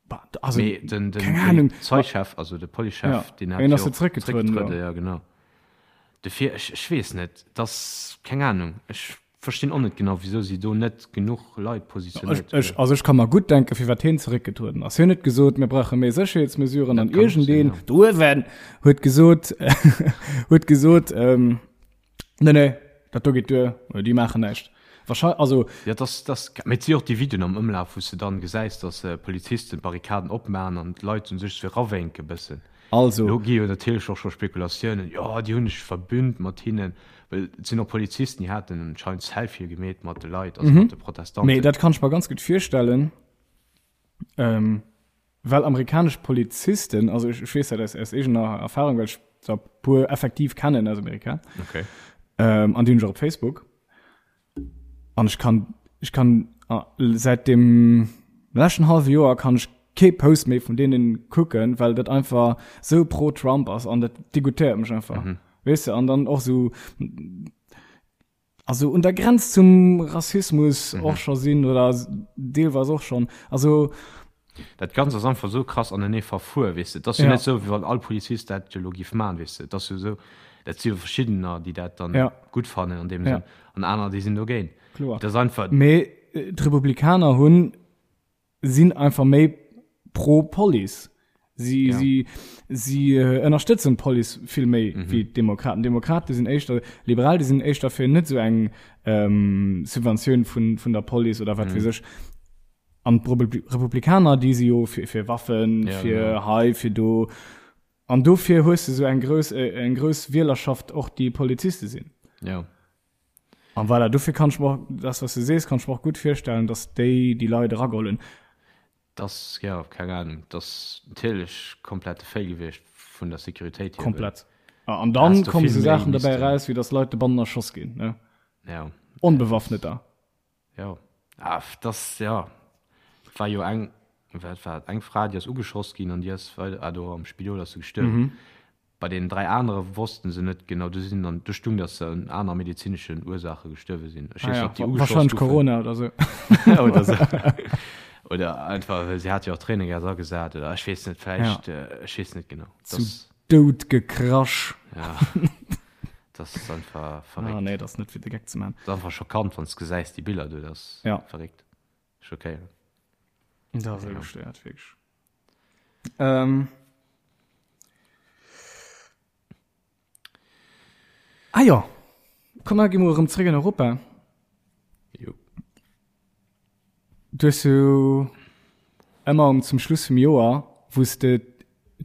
Speaker 2: Bah, also,
Speaker 1: Mee den, den
Speaker 2: keng Ahnung.
Speaker 1: Polizeichef, also de Policechef,
Speaker 2: Ja,
Speaker 1: deen hat
Speaker 2: hien
Speaker 1: jo
Speaker 2: ass jo
Speaker 1: och
Speaker 2: zréckgetrueden,
Speaker 1: zréckgetrueden,
Speaker 2: jo.
Speaker 1: ja genau. Dofir, ech, ech weess net, et ass, keng Ahnung, ech verstinn och net genau, wisou si do net genuch Leit
Speaker 2: Ech,
Speaker 1: positionéiert
Speaker 2: ech,
Speaker 1: hunn.
Speaker 2: also ech ka mer gutt denken, firwat hien zeréckgetrueden ass. Hien huet gesot, mir brauche méi Sécherheetsmesuren
Speaker 1: Dat
Speaker 2: an
Speaker 1: kann och sinn,
Speaker 2: iergendeen
Speaker 1: ja.
Speaker 2: do uewen huet gesot, huet gesot, ähm, Nee, nee, dat do geet duer, oder déi maachen näischt. Wahrscheinlich, also.
Speaker 1: Ja, das, das, mee et si och déi Videoen am Ëmlaf, wou s de dann gesäis, dass Polizisten d'Barrikaden opmaachen an d'Leit un sech sou erawénke bëssen.
Speaker 2: Also.
Speaker 1: Lo gi jo natierlech och scho Spekulatiounen, jo, déi hunn sech verbünnt mat hinnen, well et sinn och Polizisten, déi haten anscheinend Selfië gemeet mat de Leit, also mat de Protestanten.
Speaker 2: Mee dat kann ech mer ganz gutt virstellen. Well amerikanesch Polizisten, also ech, ech weess dat aus, aus eegener Erfahrung, well ech der puer effektiv kennen aus Amerika.
Speaker 1: Okay.
Speaker 2: Ähm, an déi hunn ech och op Facebook. An ech kann, ech kann ah, säit dem leschten hallwe Joer kann ech kee Post méi vun deenen kucken, well dat einfach sou pro Trump ass an dat dégoûtéiert mech einfach. Mhm. Weess de, an dann och sou also un der Grenz zum Rassismus mhm. och scho sinn oder deelweis och schon. Also
Speaker 1: dat Ganzt ass einfach so krass anenee verfuer, weess de. Dat ass jo
Speaker 2: ja.
Speaker 1: net sou, wéi wann all Polizist dat jo lo giff man, weess de. Dat ass jo sou, dat si jo verschiddener, déi dat dann
Speaker 2: ja.
Speaker 1: gutt fannen an deem
Speaker 2: ja.
Speaker 1: Sënn an aner, déi sinn dogéint.
Speaker 2: Kloer.
Speaker 1: Dat ass einfach.
Speaker 2: Mee äh, d'Republikaner hunn sinn einfach méi pro Police. Si,
Speaker 1: ja.
Speaker 2: si, si äh, ënnerstëtzen d'Police vill méi mhm. wéi d'Demokraten. Demokrate sinn éischter liberal, déi sinn éischter fir net sou eng ähm, Subventioun vun, vun der Police oder wat mhm. weess ech. An d'Republikaner, déi si jo fir, fir Waffen,
Speaker 1: ja,
Speaker 2: fir
Speaker 1: genau.
Speaker 2: hei, fir do. An dofir hues du sou eng grouss, äh, eng grouss Wielerschaft och déi Poliziste sinn.
Speaker 1: Ja.
Speaker 2: An voilà, dofir kann ech mer och, das was du sees, kann ech mer och gutt virstellen, dass déi déi Leit erageholl hunn.
Speaker 1: Dass, jo, keng Ahnung, dass natierlech komplette Fail gewiescht vun der Sécuritéit hier.
Speaker 2: Komplett. An dann
Speaker 1: Häss du
Speaker 2: kommen
Speaker 1: vill
Speaker 2: esou
Speaker 1: méi
Speaker 2: Saachen derbäi
Speaker 1: missten.
Speaker 2: eraus, wéi dass Leit dobannen erschoss ginn, ne?
Speaker 1: Ja.
Speaker 2: Onbewaffneter.
Speaker 1: Jo. Ah, dass, jo, et war jo eng, wat war et, eng Fra, déi ass ugeschoss ginn an déi ass weider, ah, do am Spidol ass se gestuerwen. Bei deenen 3 anere wossten se net genau, do sinn dann, do stung, dass se un aner medezineschen Ursaache gestuerwe sinn. Ech weess
Speaker 2: Ah
Speaker 1: net,
Speaker 2: ja,
Speaker 1: ob déi ugeschoss
Speaker 2: wahrscheinlech
Speaker 1: goufen.
Speaker 2: Corona oder sou.
Speaker 1: Oder sou. Oder einfach, well si hat jo och Tréinegas agesat oder ech weess net, vläicht,
Speaker 2: Ja.
Speaker 1: ech weess net genau.
Speaker 2: Zu
Speaker 1: Dass,
Speaker 2: Doud gekrasch.
Speaker 1: ja, das ass einfach
Speaker 2: Ah
Speaker 1: verréckt.
Speaker 2: nee, dat ass net fir de Geck ze man.
Speaker 1: Dat ass einfach schockant, wann s de gesäis, déi Biller do, dat ass
Speaker 2: Ja.
Speaker 1: verréckt, schockéierend.
Speaker 2: Dat ass esou gestéiert, wierklech. Ähm. Ah jo, komm mer gi mol erëm zréck an Europa.
Speaker 1: Jo.
Speaker 2: Du hues jo ëmmer um zum Schluss vum Joer, wou s de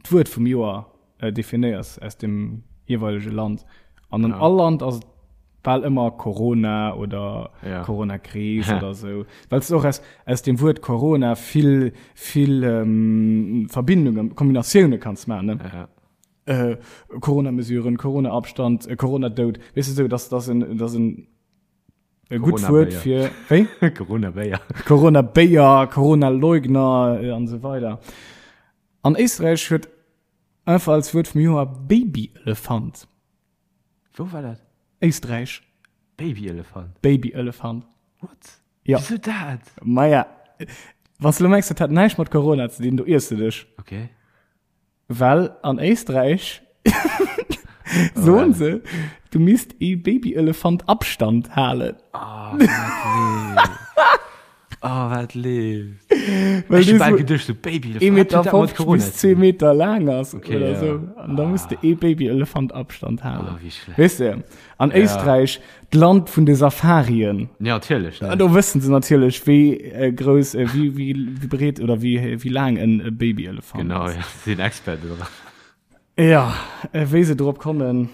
Speaker 2: d'Wuert vum Joer äh, definéiers aus dem jeeweilege Land. An an
Speaker 1: Ja.
Speaker 2: all Land ass et bal ëmmer Corona oder
Speaker 1: ja.
Speaker 2: Corona-Kris oder sou. Well s och aus, aus dem Wuert Corona vill, vill ähm, Verbindungen, Kombinatioune kanns maachen. Ne?
Speaker 1: Ja.
Speaker 2: Äh, Corona-Mesuren, Corona-Abstand, äh, Corona-Doud. Weess de sou, dass, dass en, dass en e gutt Wuert fir
Speaker 1: wéi? Corona-Béier.
Speaker 2: Corona-Béier, Corona-Leugner äh, an sou weider. An Éisträich huet einfach als Wuert vum Joer Baby-Elefant.
Speaker 1: Wou war dat?
Speaker 2: Éisträich.
Speaker 1: Babyelefant?
Speaker 2: Babyelefant.
Speaker 1: What?
Speaker 2: Ja.
Speaker 1: Wieso dat?
Speaker 2: Maja, wann du lo mengs, dat hat näischt mat Corona ze dinn, do iers du dech.
Speaker 1: Okay.
Speaker 2: Well an Éisträich soen se, du misst ee Babyelefant Abstand halen.
Speaker 1: Oh, nee. Oh, wat leeft.
Speaker 2: Well
Speaker 1: Ech
Speaker 2: dee
Speaker 1: hu bal
Speaker 2: so
Speaker 1: geduecht, so Babyelefant,
Speaker 2: 1,50
Speaker 1: wat huet dat mat
Speaker 2: Meter
Speaker 1: Corona
Speaker 2: bis
Speaker 1: ze
Speaker 2: 2
Speaker 1: dinn?
Speaker 2: Meter laang ass
Speaker 1: Okay,
Speaker 2: oder
Speaker 1: ja.
Speaker 2: sou. An da muss de ee Babyelefant Abstand halen.
Speaker 1: Oh, wéi schlecht.
Speaker 2: Weess de, an
Speaker 1: Ja.
Speaker 2: Éisträich, d'Land vun de Safarien.
Speaker 1: Ja, natierlech, ne?
Speaker 2: Do wëssen se natierlech, wéi äh, grouss, äh, wéi, wéi, wéi breet oder wéi, wéi laang en e Babyelefant
Speaker 1: Genau,
Speaker 2: ass.
Speaker 1: ja, si sinn Experten dran.
Speaker 2: Ja, äh, wéi se drop kommen.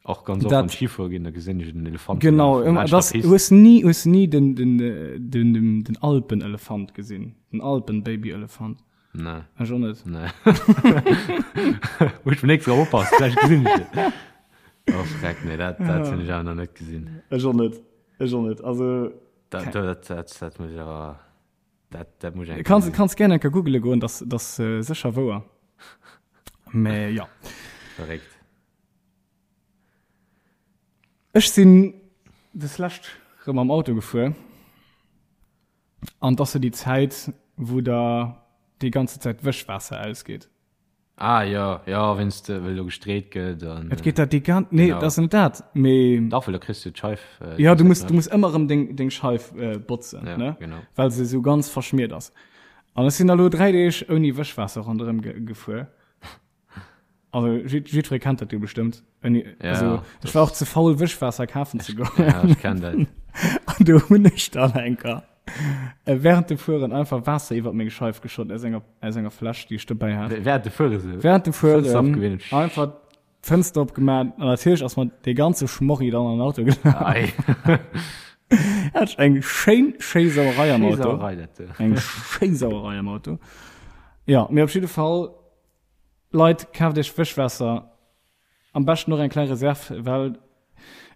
Speaker 1: Och ganz oft
Speaker 2: Dat-
Speaker 1: wann ech Skifuere ginn, da gesinn ech en Elefant
Speaker 2: Genau,
Speaker 1: lafen
Speaker 2: ëmmer,
Speaker 1: laanscht der
Speaker 2: das,
Speaker 1: Pist.
Speaker 2: hues ni, hues ni den, den, den, den, den Alpenelefant gesinn? Den Alpen-Babyelefant?
Speaker 1: Nee.
Speaker 2: Ech och net.
Speaker 1: Nee. Muss ech beim nächste Mal oppassen, vläicht gesinn ech en. Oh, freck, nee, dat, dat hunn ech awer nach net gesinn.
Speaker 2: Ech och net, ech och net. Also,
Speaker 1: Dat, dat, dat, dat muss ech awer, dat, dat muss ech eng Kéier
Speaker 2: kanns,
Speaker 1: gesinn.
Speaker 2: kanns gär eng Kéier googele goen, dat, dat ass sécher wouer. Mä jo.
Speaker 1: Verréckt.
Speaker 2: Ech sinn deslescht rëm mam Auto gefuer an 't ass sou déi Zäit, wou der déi ganze Zäit d'Wëschwaasser ausgeet.
Speaker 1: Ah jo, jo, wéinst well do gestreet gëtt an.
Speaker 2: Et geet dat déi gan-, nee,
Speaker 1: Genau.
Speaker 2: dat ass net dat, mee.
Speaker 1: Dach, well da kriss du d'Scheif.
Speaker 2: Jo, du muss, du muss ëmmer erëm deng, deng Scheif botzen,
Speaker 1: Ja,
Speaker 2: ne?
Speaker 1: genau.
Speaker 2: Well se sou ganz verschmiert ass. An ech sinn da lo 3 Deeg ouni Wëschwaasser ronderëm ge gefuer. Also jiddweree kennt dat jo bestëmmt. Wenn,
Speaker 1: ja,
Speaker 2: also, ech war och ze faul Wëschwaasser kafen ze goen.
Speaker 1: Ja, ech kenn dat.
Speaker 2: An do hunn ech dann enker äh, während dem Fueren einfach Waasser iwwer meng Scheif geschott aus enger, aus enger Fläsch, déi ech dobäi hat.
Speaker 1: Während dem Fuere sou?
Speaker 2: Während dem
Speaker 1: Fënster
Speaker 2: Fueren
Speaker 1: opgewinnt.
Speaker 2: einfach d'Fënster opgemaach an natierlech ass mer dee ganze Schmorri dann an den Auto gelaf.
Speaker 1: Ei.
Speaker 2: Hat ech eng schéin, schéi Sauerei am
Speaker 1: Schéi
Speaker 2: Auto.
Speaker 1: Sauerei, dat do.
Speaker 2: Eng schéi Sauerei am Auto. Ja, mee op jidde Fall, Leit, kaaft iech Wëschwaasser, am beschten och eng kleng Reserv, well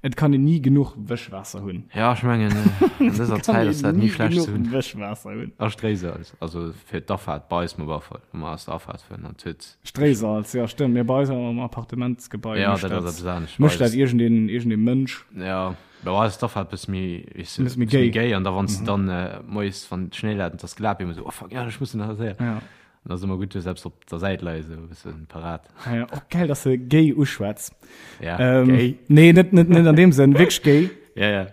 Speaker 2: et kann een ni genuch Wëschwaasser hunn.
Speaker 1: Ja, ech mengen an dëser Zäit ass dat ni schlecht ze hunn.
Speaker 2: Wëschwaasser hunn.
Speaker 1: A Stréisalz, also fir d'Afaart bei eis mol Afall, wa mer aus der Afaart fueren, an huet.
Speaker 2: Stréisalz, jo stëmmt, mee bei eis am Appartementsgebai
Speaker 1: Ja,
Speaker 2: mécht
Speaker 1: dat ass
Speaker 2: dat,
Speaker 1: eppes anescht.
Speaker 2: mécht dat iergendeen, iergendee Mënsch.
Speaker 1: Ja, bei eis ass d'Afaart bësse méi, weess de,
Speaker 2: Bësse méi
Speaker 1: bësse méi
Speaker 2: géi.
Speaker 1: géi an da wann s de dann moies, wann Schnéi läit an et ass glat, bi ëmmer esou, oh fuck, ja, ech muss nach séier.
Speaker 2: Ja.
Speaker 1: An ass ëmmer gutt, du hues eppes op der Säit leien, esou e bëssen parat.
Speaker 2: Ah ja, och geil, dass de gay uschwätz.
Speaker 1: Ja,
Speaker 2: ähm,
Speaker 1: gay.
Speaker 2: Nee, net, net, net an dem Sënn, wierklech gay.
Speaker 1: Ja, ja.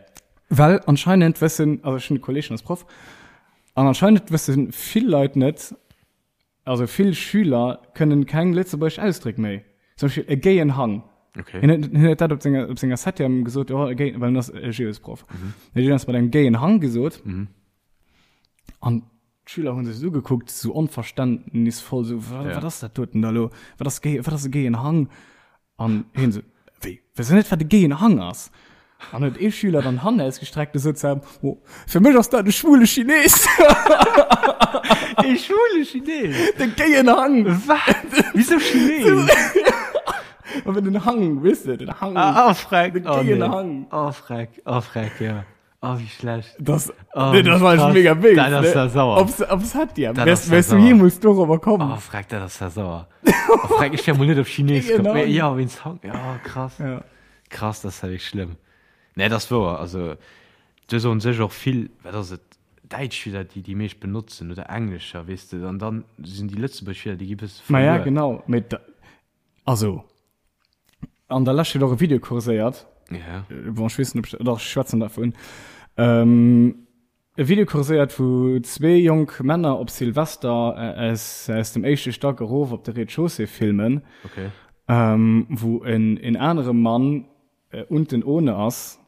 Speaker 2: Well anscheinend wëssen, also ech hunn e Kolleg, deen ass Proff, an anscheinend wësse vill Leit net, also vill Schüler kënnen keng lëtzebuergesch Ausdréck méi. Zum Beispill e gayen Hang.
Speaker 1: Okay.
Speaker 2: Hien huet, hien huet dat op senger, op senger Septième gesot, oh, e gay, well en ass e Geosproff. Mhm. Hien huet mat engem gayen Hang gesot.
Speaker 1: Mhm.
Speaker 2: An D'Schüler hunn sech et ugekuckt, sou onverständnisvoll, sou, Wa,
Speaker 1: Ja.
Speaker 2: wat ass dat doten da lo? Wat ass gay, wat ass e gayen Hang? An hien sou, Wéi, wësst der net, wat e gayen Hang ass? An huet ee Schüler dann d'Hand ausgestreckt a sot zu him, Oh, fir mech ass dat e schwule Chines!
Speaker 1: E schwule Chines?
Speaker 2: De gayen Hang!
Speaker 1: Wat? Wisou Chines?
Speaker 2: Awer den Hang, weess de, den Hang.
Speaker 1: Ah, oh, freck.
Speaker 2: De
Speaker 1: Oh,
Speaker 2: gayen
Speaker 1: nee.
Speaker 2: Hang.
Speaker 1: Oh, freck, oh, freck, ja. Oh, wéi schlecht.
Speaker 2: Das,
Speaker 1: oh,
Speaker 2: nee, das war
Speaker 1: krass.
Speaker 2: mega wéi.
Speaker 1: Dat ass ja sauer.
Speaker 2: Ob's, ob's hat ja.
Speaker 1: Dat
Speaker 2: Wärst,
Speaker 1: ass ja
Speaker 2: wärst du
Speaker 1: sauer.
Speaker 2: jemals dorobber komm?
Speaker 1: Oh, freck, dat ass ja sauer. Oh, freck, ich wär mol net op Chines
Speaker 2: Genau.
Speaker 1: komm. Ja, wéinst Hang. Ja, krass.
Speaker 2: Ja.
Speaker 1: Krass, das ist ja wirklich schlimm. Nee, das ist wouer. Also, do soen sech och vill, wat ass et, Däitsch Wierder, déi déi meescht benotzen, oder Englescher, weess de, an dann sinn déi lëtzebuergesch Wierder, déi gi bësse
Speaker 2: Ma ja,
Speaker 1: verluer.
Speaker 2: genau. Mee da, also, an der Lescht huet och e Video kurséiert.
Speaker 1: Ja.
Speaker 2: Bon, ech weess net, ob ech, doch, ech schwätzen dervun. Ähm, e Video kurséiert, wou zwee jonk Männer op Silvester aus, aus dem éischte Stack erof op de Rez-de-chaussée filmen.
Speaker 1: Okay.
Speaker 2: Ähm, wou en, en anere Mann äh, unten ohne ass.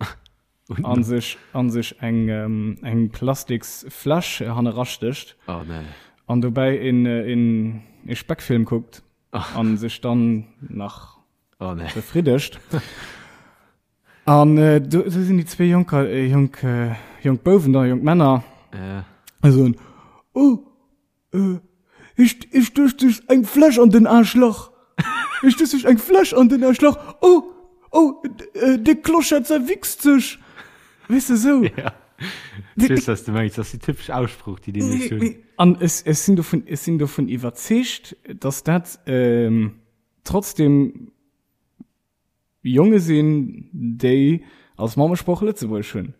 Speaker 2: an sech an sech eng ähm, eng plastiks Fläsch hannerastécht.
Speaker 1: Oh, nee.
Speaker 2: An dobäi en, en, e Speckfilm kuckt. An sech dann nach
Speaker 1: oh, nee.
Speaker 2: befriddegt. An äh, do, do sinn déi zwee Jonker, äh, jonk, äh, jonk Bouwen da, jonk Männer.
Speaker 1: Ja.
Speaker 2: A soen, oh, äh, ich, ich duerch sech eng Fläsch an den Aarschlach. Ich duerch sech eng Fläsch an den Aarschlach. Oh, oh, äh, de Clochard zerwichst sech. Weess de, sou.
Speaker 1: Ja. Ich weess, was du mengst. Das ist die typisch Aussprach, die die nicht hunn.
Speaker 2: An ech, ech sinn dovun, ech sinn dovun iwwerzeegt, dass dat ähm, trotzdem Jonge sinn, déi als Mammesprooch Lëtzebuergesch hunn.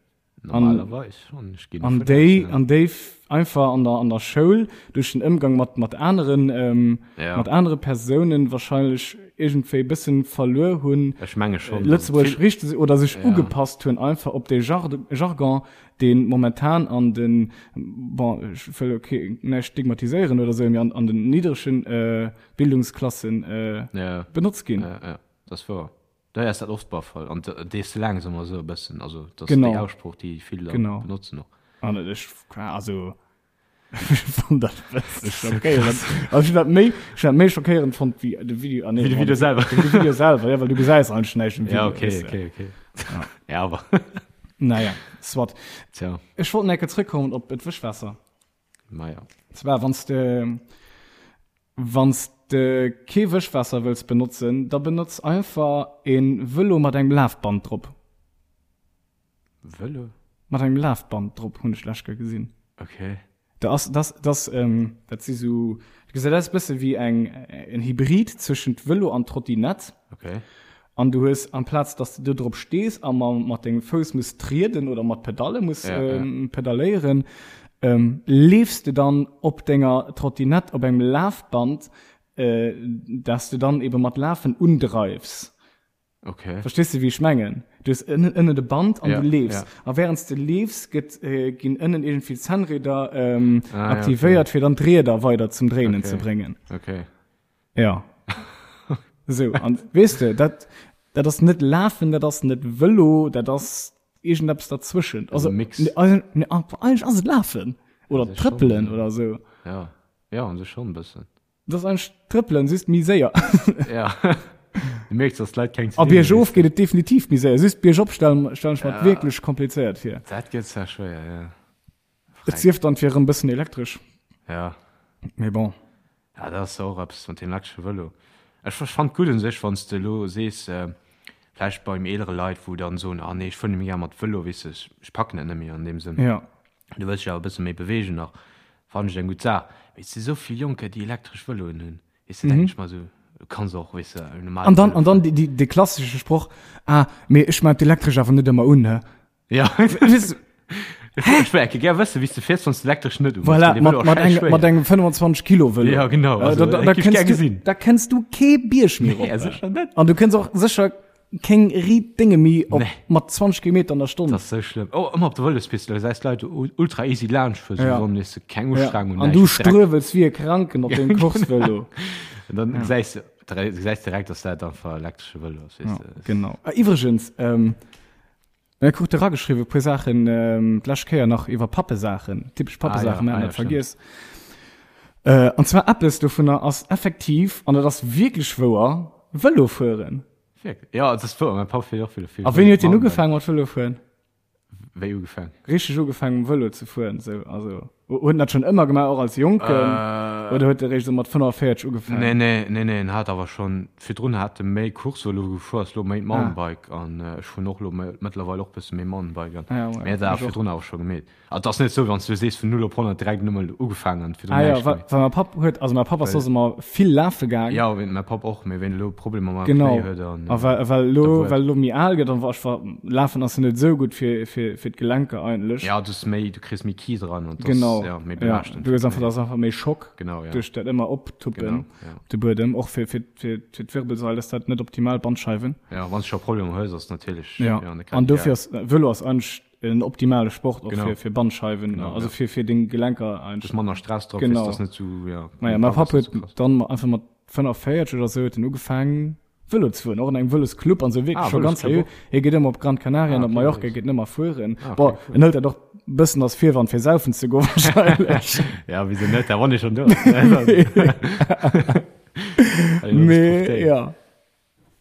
Speaker 1: Normalerweis schon. Ech ginn
Speaker 2: An
Speaker 1: dovun
Speaker 2: déi
Speaker 1: aus, ja.
Speaker 2: an déi einfach an der an der Schoul duerch den Ëmgang mat mat aneren ähm,
Speaker 1: Ja.
Speaker 2: mat anere Persounen wahrscheinlech iergendwéi bëssen verluer hunn,
Speaker 1: Ech menge schon, dass et
Speaker 2: Lëtzebuergesch
Speaker 1: vill
Speaker 2: richteg oder sech
Speaker 1: Ja.
Speaker 2: ugepasst hunn einfach op dee Jar Jargon, dee momentan an den, bon ech wëll ok näischt stigmatiséieren oder sou, mee an an den niddregen äh, Bildungsklassen äh,
Speaker 1: Ja.
Speaker 2: benotzt ginn.
Speaker 1: Ja, ja, dat ass wouer. Dei ass dat oft bar Fall an dees de laang ëmmer esou e bëssen, also dat ass
Speaker 2: Genau.
Speaker 1: déi Aussprooch déi vill da
Speaker 2: Genau.
Speaker 1: benotzen och.
Speaker 2: An ech also ech fann dat e bësse schockéierend. Also ech hunn dat méi ech hunn dat méi schockéierend fonnt wéi de Video ah nee
Speaker 1: Wéi de Video selwer.
Speaker 2: Wéi de Video selwer, ja well du gesäis eigentlech näischt um Video.
Speaker 1: Ja okay
Speaker 2: weess de.
Speaker 1: okay okay. Ja awer.
Speaker 2: Naja, soit.
Speaker 1: Tja.
Speaker 2: Ech wollt nach eng Kéier zrëckkommen op d'Wëschwaasser.
Speaker 1: Maja.
Speaker 2: Zwar wann s de Wann s de kee Wëschwaasser wëlls benotzen, da benotz einfach e Vëlo mat engem Lafband drop.
Speaker 1: Vëlo?
Speaker 2: Mat engem Lafband drop, hunn ech d'lescht Kéier gesinn.
Speaker 1: Okay.
Speaker 2: Da ass, dat, dat, dat si sou, dat gesäit aus e bësse wéi eng, en Hybrid zwëschent Vëlo an Trottinett.
Speaker 1: Okay.
Speaker 2: An du hues, amplaz dass de do drop stees a mat dengem Fouss muss trieden oder mat Pedalle muss ja, ähm, ja. pedaléieren, ähm, leefs de dann op denger Trottinett op engem Lafband, äh, dass du dann eben mat Lafen undreifs.
Speaker 1: Okay.
Speaker 2: Verstehst du, wie ich mengen? Du hast ënnen, ënnen de Band an
Speaker 1: ja,
Speaker 2: du leefs.
Speaker 1: Ja.
Speaker 2: A während du leefs, gëtt, äh, ginn ënnen irgendwie Zahnräder ähm,
Speaker 1: ah,
Speaker 2: aktivéiert,
Speaker 1: ja, okay.
Speaker 2: fir dann d'Rieder weider zum Dréinen
Speaker 1: okay.
Speaker 2: ze bréngen.
Speaker 1: Okay.
Speaker 2: Ja. Sou, an weess de, dat, dat ass net Lafen, dat ass net Vëlo, dat ass iergendeppes derzwëschent.
Speaker 1: Also Mix.
Speaker 2: Ne, ne, eigentlech ass et Lafen. Oder
Speaker 1: An sech schon,
Speaker 2: Trëppelen
Speaker 1: ja.
Speaker 2: oder sou.
Speaker 1: Ja, ja, an sech schon e bëssen.
Speaker 2: Dat ass eigentlech Trëppelen, just méi séier.
Speaker 1: Ja. Du mierks, dass d'Leit keng
Speaker 2: A
Speaker 1: ze dinn hunn,
Speaker 2: biergof
Speaker 1: weess de.
Speaker 2: geet et definitiv méi séier. Just biergop stellen, stellen ech mer
Speaker 1: Ja.
Speaker 2: wierklech komplizéiert vir.
Speaker 1: Dat gëtt zwar schwéier, ja.
Speaker 2: Et sief dann, et wier erëm bëssen elektresch.
Speaker 1: Ja.
Speaker 2: Mee bon.
Speaker 1: Ja, dat ass och eppes mat deem elektresche Vëlo. Ech fannt gutt un sech, wann s de elo sees, vläicht beim eelere Leit, wou dann soen, ah nee, ech fuer net méi gär mat Vëlo, weess de, ech packen dat net méi an deem Sënn.
Speaker 2: Ja.
Speaker 1: Du wëlls dech awer e bësse méi beweegen nach, fannen ech eng gutt Saach. Mee et si sou vill Jonker, déi elektresch Vëloen hunn, weess de, denken ech mer esou, du kanns och, weess de, en normale
Speaker 2: An dann,
Speaker 1: Vëlo
Speaker 2: an dann
Speaker 1: fueren.
Speaker 2: déi, déi, dee klassesche Sproch, ah, mee ech maan d'elektresch awer net ëmmer un, hä?
Speaker 1: Ja.
Speaker 2: Weess de,
Speaker 1: Ech wär gär wëssen, wéi s de fiers, wann s de elektresch net uhues.
Speaker 2: Voilà,
Speaker 1: Dee
Speaker 2: mat,
Speaker 1: Vëlo ass
Speaker 2: mat, eng,
Speaker 1: scheißschwéier.
Speaker 2: mat engem 25 Kilo Vëlo.
Speaker 1: Ja, genau.
Speaker 2: Äh,
Speaker 1: Also,
Speaker 2: da, da,
Speaker 1: dat
Speaker 2: da
Speaker 1: géif ich gär
Speaker 2: kënns du,
Speaker 1: gesinn.
Speaker 2: da kënns du kee Bierg méi
Speaker 1: Nee,
Speaker 2: rop.
Speaker 1: sécher net.
Speaker 2: An du kënns och sécher keng riit Dénge méi op
Speaker 1: Nee.
Speaker 2: mat 20 Kilometer an der Stonn.
Speaker 1: Dat ass sou schlëmm. Oh, ëmmer op der Vëlospist, da gesäis d'Leit ultra easy laanscht fueren,
Speaker 2: Ja.
Speaker 1: sou wann weess de, keng
Speaker 2: Ja.
Speaker 1: Ustrengung,
Speaker 2: An
Speaker 1: näischt.
Speaker 2: du
Speaker 1: Direkt.
Speaker 2: struewels wéi e Kranken op deem Coursevëlo.
Speaker 1: An dann gesäis de, gesäis direkt, dass dat einfach elektresche Vëlo ass, weess
Speaker 2: Ja,
Speaker 1: de.
Speaker 2: genau. Ah, iwwregens, ähm, Mir krute erageschriwwen e puer Saachen d'lescht Kéier nach iwwer Pappesaachen, typesch Pappesaachen, mir haten dat vergiess. An zwar eppes dovunner ass effektiv, an dat ass wierklech wouer, Vëlo fueren.
Speaker 1: Wierklech? Jo, et ass wouer, mäi Papp fiert och vill Vëlo.
Speaker 2: A wéini huet deen ugefaangen mat Vëlo fueren?
Speaker 1: Wéi ugefaangen?
Speaker 2: Richteg ugefaangen mam Vëlo ze fueren, sou, also. Huet en dat schonn ëmmer gemaach, och als Jonken? Oder huet e réischt esou mat 45 ugefaangen?
Speaker 1: Nee, nee, nee, nee, en hat awer schonn, virdrun hat e méi Course-Vëlo gefuer, ass lo méi Mountainbike an ech fueren och lo mëttlerweil och bësse méi Mountainbike an, mee hat awer virdrun awer scho gemeet. Also et ass net esou, wann s du sees vun 0 op 100 direkt nëmmen ugefaangen an virdrun
Speaker 2: Ah jo,
Speaker 1: näischt
Speaker 2: well
Speaker 1: gemeet.
Speaker 2: well mäi Papp huet, also mäi Papp ass soss ëmmer vill lafe gaang.
Speaker 1: Jo, wéi mäi Papp och, mee wéi en elo Problemer mam
Speaker 2: Genau,
Speaker 1: Knéi huet an
Speaker 2: a well well elo
Speaker 1: da wuel.
Speaker 2: well elo méi al gëtt an wa ech wa lafen ass jo net esou gutt fir fir fir d'Gelenker eigentlech.
Speaker 1: Ja, du hues méi, du kriss méi Kies eran an
Speaker 2: Genau,
Speaker 1: ja, méi
Speaker 2: ja,
Speaker 1: belaaschtend.
Speaker 2: du hues einfach, dat ass einfach méi Schock
Speaker 1: Genau, ja.
Speaker 2: duerch dat ëmmer optuppen
Speaker 1: Genau, ja.
Speaker 2: op de Buedem, och fir fir fir fir d'Wirbelsail ass dat net optimal, Bandscheiwen.
Speaker 1: Ja, wann s du scho Problemer hues, ass natierlech,
Speaker 2: Ja,
Speaker 1: ja, net grad
Speaker 2: an dofir
Speaker 1: ideal.
Speaker 2: ass Vëlo ass eigentlech en optimale Sport och
Speaker 1: Genau.
Speaker 2: fir fir Bandscheiwen,
Speaker 1: Genau,
Speaker 2: also
Speaker 1: ja.
Speaker 2: fir fir deng Gelenker
Speaker 1: Du
Speaker 2: eigentlech.
Speaker 1: hues manner Stress drop,
Speaker 2: Genau.
Speaker 1: weess, dass net sou, ja.
Speaker 2: Maja, mäi Papp
Speaker 1: ass net
Speaker 2: huet
Speaker 1: sou krass.
Speaker 2: dann einfach mat 45 oder sou huet en ugefaangen Vëlo ze fueren, och an engem Vëlosclub an sou, wierklech
Speaker 1: Ah,
Speaker 2: scho ganz
Speaker 1: Vëlosclub
Speaker 2: seriö.
Speaker 1: och.
Speaker 2: Hie geet ëmmer op Gran Canaria
Speaker 1: Ah,
Speaker 2: an op
Speaker 1: okay,
Speaker 2: Mallorca,
Speaker 1: nice.
Speaker 2: geet en ëmmer fueren.
Speaker 1: Ah, okay,
Speaker 2: Bon,
Speaker 1: cool.
Speaker 2: en hëlt dat och bëssen als Virwand fir saufen ze goen wahrscheinlech.
Speaker 1: Ja, wieso net, da wann ee schonn do ass.
Speaker 2: Mee ja,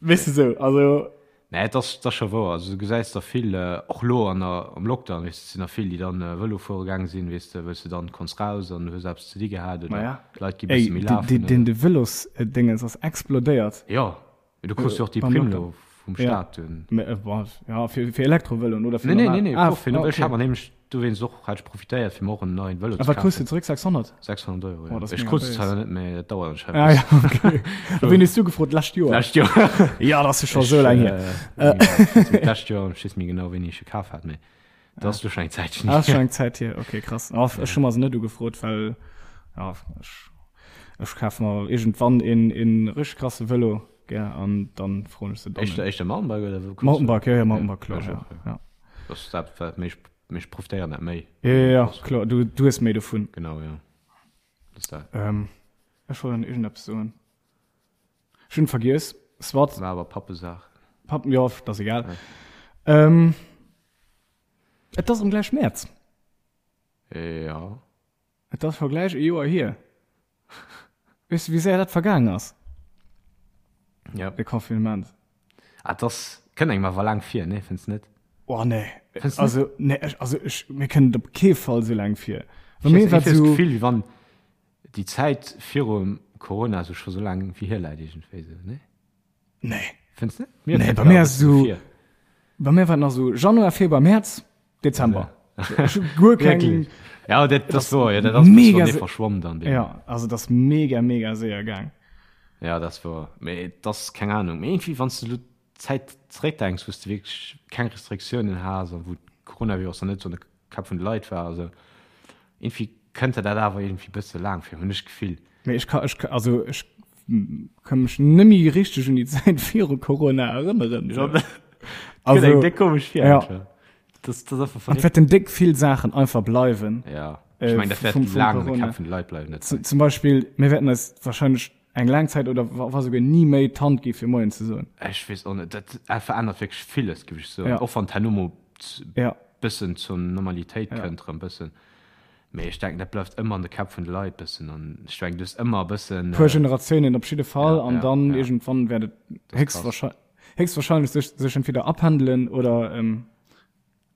Speaker 2: weess de sou, also.
Speaker 1: Nee, et ass, et ass scho wouer. Also du gesäis der vill, och elo an der, am Lockdown, weess de, et sinn der vill, déi dann Vëlo fuere gaange sinn, weess de, wëlls de dann konns raus an hues eppes ze di gehat oder
Speaker 2: Maja.
Speaker 1: d'Leit gi
Speaker 2: Ey,
Speaker 1: bësse méi lafen
Speaker 2: deen,
Speaker 1: oder.
Speaker 2: deen de Vëlosdéngens ass explodéiert.
Speaker 1: Jo, mee du krus jo och déi
Speaker 2: Beim
Speaker 1: Primm
Speaker 2: Lockdown.
Speaker 1: elo vum
Speaker 2: Ja.
Speaker 1: Staat dunn.
Speaker 2: Mee, bon, ja, fir, fir Elektrovëloen oder fir
Speaker 1: Nee, nee,
Speaker 2: normal?
Speaker 1: nee, nee,
Speaker 2: Ah,
Speaker 1: och fir,
Speaker 2: ah,
Speaker 1: ech hat
Speaker 2: okay.
Speaker 1: mer nämlech dowéinst och, hat ech profitéiert, fir mer och en neien Vëlo
Speaker 2: A
Speaker 1: ze
Speaker 2: wat krus de
Speaker 1: kafen.
Speaker 2: zeréck? 600?
Speaker 1: 600 Euro,
Speaker 2: Oh,
Speaker 1: ja.
Speaker 2: dat ass
Speaker 1: Ech
Speaker 2: mega
Speaker 1: krut se
Speaker 2: béis.
Speaker 1: zwar net, mee dat dauert anscheinend
Speaker 2: Ah,
Speaker 1: e
Speaker 2: ja,
Speaker 1: bëssen.
Speaker 2: okay. A wéini hues du gefrot? D'lescht Joer?
Speaker 1: D'lescht Joer.
Speaker 2: Ja, dat ass jo scho sou laang hier.
Speaker 1: Ech, äh, d'lescht Joer, ech weess net méi genau, wéini ech e kaf hat, mee. Dat ass lo schon eng Zäitchen
Speaker 2: Ah, schon eng Zäit hier. Okay, krass. Ah, ech hu mer se net ugefrot, well ja, ech, ech kaf mer iergendwann een, een richteg krasse Vëlo, gell, an dann froen ech se dann.
Speaker 1: Éischter, éischter Mountainbike oder wou kucks du?
Speaker 2: Mountainbike, ja, ja, Mountainbike, kloer,
Speaker 1: ech
Speaker 2: ja.
Speaker 1: och, ja.
Speaker 2: Ja.
Speaker 1: Dat ass dat, wat méi, méi ech profitéieren dat méi.
Speaker 2: Ja, ja, ja, kloer, du, du hues méi dovun.
Speaker 1: Genau, ja. Dat ass dat.
Speaker 2: Ähm, ech wollt nach iergendeppes soen. Ech hunn vergiess. Soit.
Speaker 1: War awer Pappesaach.
Speaker 2: Papp, jo, dat ass egal. Ja. Ähm, et ass erëm gläich Mäerz.
Speaker 1: Ja.
Speaker 2: Et ass scho gläich e Joer hier. Weess du, wéi séier dat vergaang ass?
Speaker 1: Ja.
Speaker 2: De Confinement.
Speaker 1: Ah, et ass, kënnt engem awer laang vir, nee, fënns net?
Speaker 2: Oh, nee.
Speaker 1: Fënns net?
Speaker 2: Also, nee, ech, also ech, mir kënnt et op kee Fall sou laang vir.
Speaker 1: Bei mir war et sou. Gefill, wéi wann déi Zäit virum Corona sou scho sou laang vir hier läit iergendwéi sou, nee?
Speaker 2: Nee.
Speaker 1: Fënns net?
Speaker 2: Mir nee, bei mir ass so, bei mir war nach so Januar, Februar, März, Dezember.
Speaker 1: Ja.
Speaker 2: Guer keng.
Speaker 1: Ja, dat, das war, ja, dat ass
Speaker 2: mega
Speaker 1: verschwommen dann.
Speaker 2: Ja, also das mega, mega séier gaang.
Speaker 1: Ja, das war, mee das keng Ahnung. Mee irgendwie, wann du Zäit zeréckdenks, wou du wierklech keng Restriktiounen has an wou Coronavirus nach net sou an de Käpp vun de Leit war, also irgendwie kënnt der dat awer irgendwie bësse laang vir, hunn ech d'Gefill.
Speaker 2: Mee ech ka, ech, also ech ka mech nëmmi richteg un déi Zäit viru Corona erënneren.
Speaker 1: Ja, dat also, gëtt eng déck komesch vir.
Speaker 2: Ja.
Speaker 1: Das, das ass einfach
Speaker 2: An et wäerten déck vill Saachen einfach bleiwen.
Speaker 1: Ja. Ech meng, dat wäert laang an de Käpp vun de Leit bleiwen.
Speaker 2: Zum, zum Beispill, mir wäerten eis wahrscheinlech eng laang Zäit oder wa souguer ni méi d'Hand gi fir Moien ze soen.
Speaker 1: Ech weess och net, dat verännert wierklech villes, géif ech soen.
Speaker 2: Ja.
Speaker 1: Och wann d'herno mol
Speaker 2: Ja.
Speaker 1: bëssen zur Normalitéit
Speaker 2: Ja.
Speaker 1: kënnt erëm bëssen. Mee ech denken, dat bleift ëmmer an de Käpp vun de Leit bëssen an ech denken, du hues ëmmer e bëssen.
Speaker 2: Puer Generatiounen op jidde Fall
Speaker 1: Ja,
Speaker 2: an
Speaker 1: ja,
Speaker 2: dann
Speaker 1: ja.
Speaker 2: iergendwann wäert et
Speaker 1: Das ass krass.
Speaker 2: héchstwahrscheinlech héchstwahrscheinlech sech sech entweder apendelen oder ähm,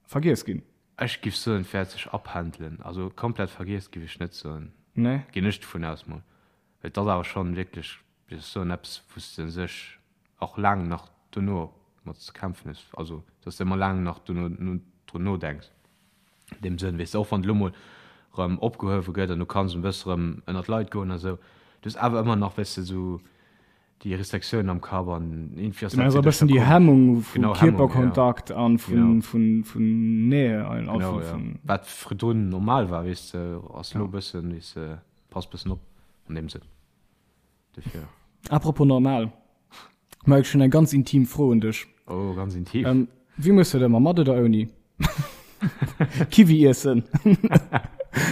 Speaker 2: vergiess ginn.
Speaker 1: Ech giff soen, et wäert sech apendelen. Also komplett vergiess giff ech net soen.
Speaker 2: Nee?
Speaker 1: Ginn ech dovun aus mol. Well et ass awer schonn wierklech, wéi soll ech soen, eppes wou s de sech och laang nach dono mat ze kämpfen hues. Also dass de ëmmer laang nach dono drun nodenks an deem Sënn, weess de, och wann et elo mol erëm opgehuewe gëtt an du kanns e bësse erëm ënnert d'Leit goen a sou, du hues awer ëmmer nach, weess de, sou déi Restriktiounen am Kapp an
Speaker 2: irgendwie ass dat e bëssen déi Hemmung vu Kierperkontakt an vun vun vun Nähe
Speaker 1: genau, ja. Wat virdrun normal war, weess de, ass elo e bëssen, weess de, Pass bëssen op an deem Sënn. Dofir.
Speaker 2: Apropos normal, Mike, ech hunn eng ganz intim Fro un dech.
Speaker 1: Oh, ganz intim.
Speaker 2: Ähm, wéi muss du dat ëmmer, mat oder ouni? Kiwi iessen.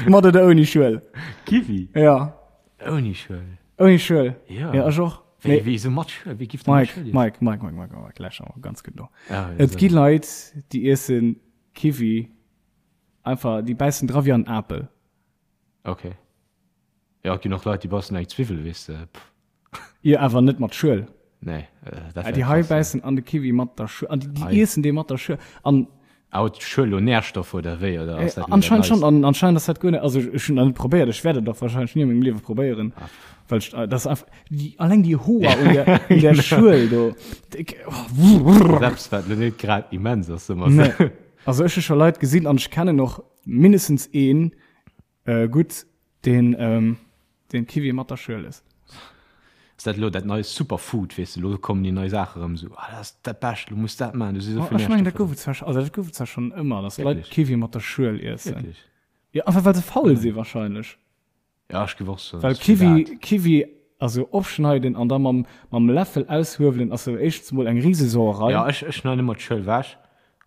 Speaker 2: Mat oder ouni Schuel?
Speaker 1: Kiwi?
Speaker 2: Ja.
Speaker 1: Ouni Schuel.
Speaker 2: Ouni Schuel?
Speaker 1: Ja.
Speaker 2: Ja, ech och.
Speaker 1: Wéi, wéi sou mat Schuel? Wéi giff de mat
Speaker 2: Mike,
Speaker 1: Schuel iessen?
Speaker 2: Mike, Mike, Mike, Mike, Mike, lauschter mol ganz gutt no.
Speaker 1: Ah, ja,
Speaker 2: Et
Speaker 1: so.
Speaker 2: gi Leit, déi iessen Kiwi einfach, déi bäissen dra wéi an Apel.
Speaker 1: Ok. Jo, et ginn och Leit, déi beissen eng Zwiwwel, weess de. Pff.
Speaker 2: Jo, awer net mat Schuel.
Speaker 1: Nee, dat wär
Speaker 2: Déi hei
Speaker 1: krass, ja.
Speaker 2: bäissen an de Kiwi mat der Schuel. An déi, déi
Speaker 1: Ei.
Speaker 2: iessen dee mat der Schuel. An.
Speaker 1: Ah, huet d'Schuel lo Nährstoffer oder wéi, oder ass dat elo dat
Speaker 2: Anscheinend schonn.
Speaker 1: Neist?
Speaker 2: An anscheinend ass dat guer net, also ech hunn dat net probéiert, ech wäert et och wahrscheinlech ni a mengem Liewe probéieren,
Speaker 1: Ah, pff.
Speaker 2: well ech, dat ass einfach, déi, alleng déi Hoer un der, un der Schuel do. Déck, oh.
Speaker 1: Dat ass eppes, wat lo net grad immens ass, soe mer esou.
Speaker 2: Nee. Also ech hu scho Leit gesinn an ech kennen och mindestens een, Äh, gutt, deen, ähm, deen Kiwi mat der Schuel ësst.
Speaker 1: Ass dat elo dat nei Superfood, weess de, elo kommen déi nei Saache rëm esou, ah dat ass dat Bescht, elo muss dat maachen, do si sou
Speaker 2: Oh,
Speaker 1: vill
Speaker 2: ech mengen, dat
Speaker 1: Nährstoffer
Speaker 2: gouf
Speaker 1: dran.
Speaker 2: et zwar, also dat gouf et zwar schonn ëmmer, dass Leit
Speaker 1: Wierklech?
Speaker 2: Kiwi mat der Schuel iessen.
Speaker 1: Wierklech?
Speaker 2: Jo, einfach well se faul si wahrscheinlech.
Speaker 1: Ja, ech géif och soen,
Speaker 2: Well
Speaker 1: dass fir
Speaker 2: Kiwi,
Speaker 1: dat.
Speaker 2: Kiwi, also opschneiden an da mam, mam Läffel aushuewelen ass jo éischtens mol eng Risesauerei.
Speaker 1: Ja, ech, ech schneiden ëmmer d'Schuel ewech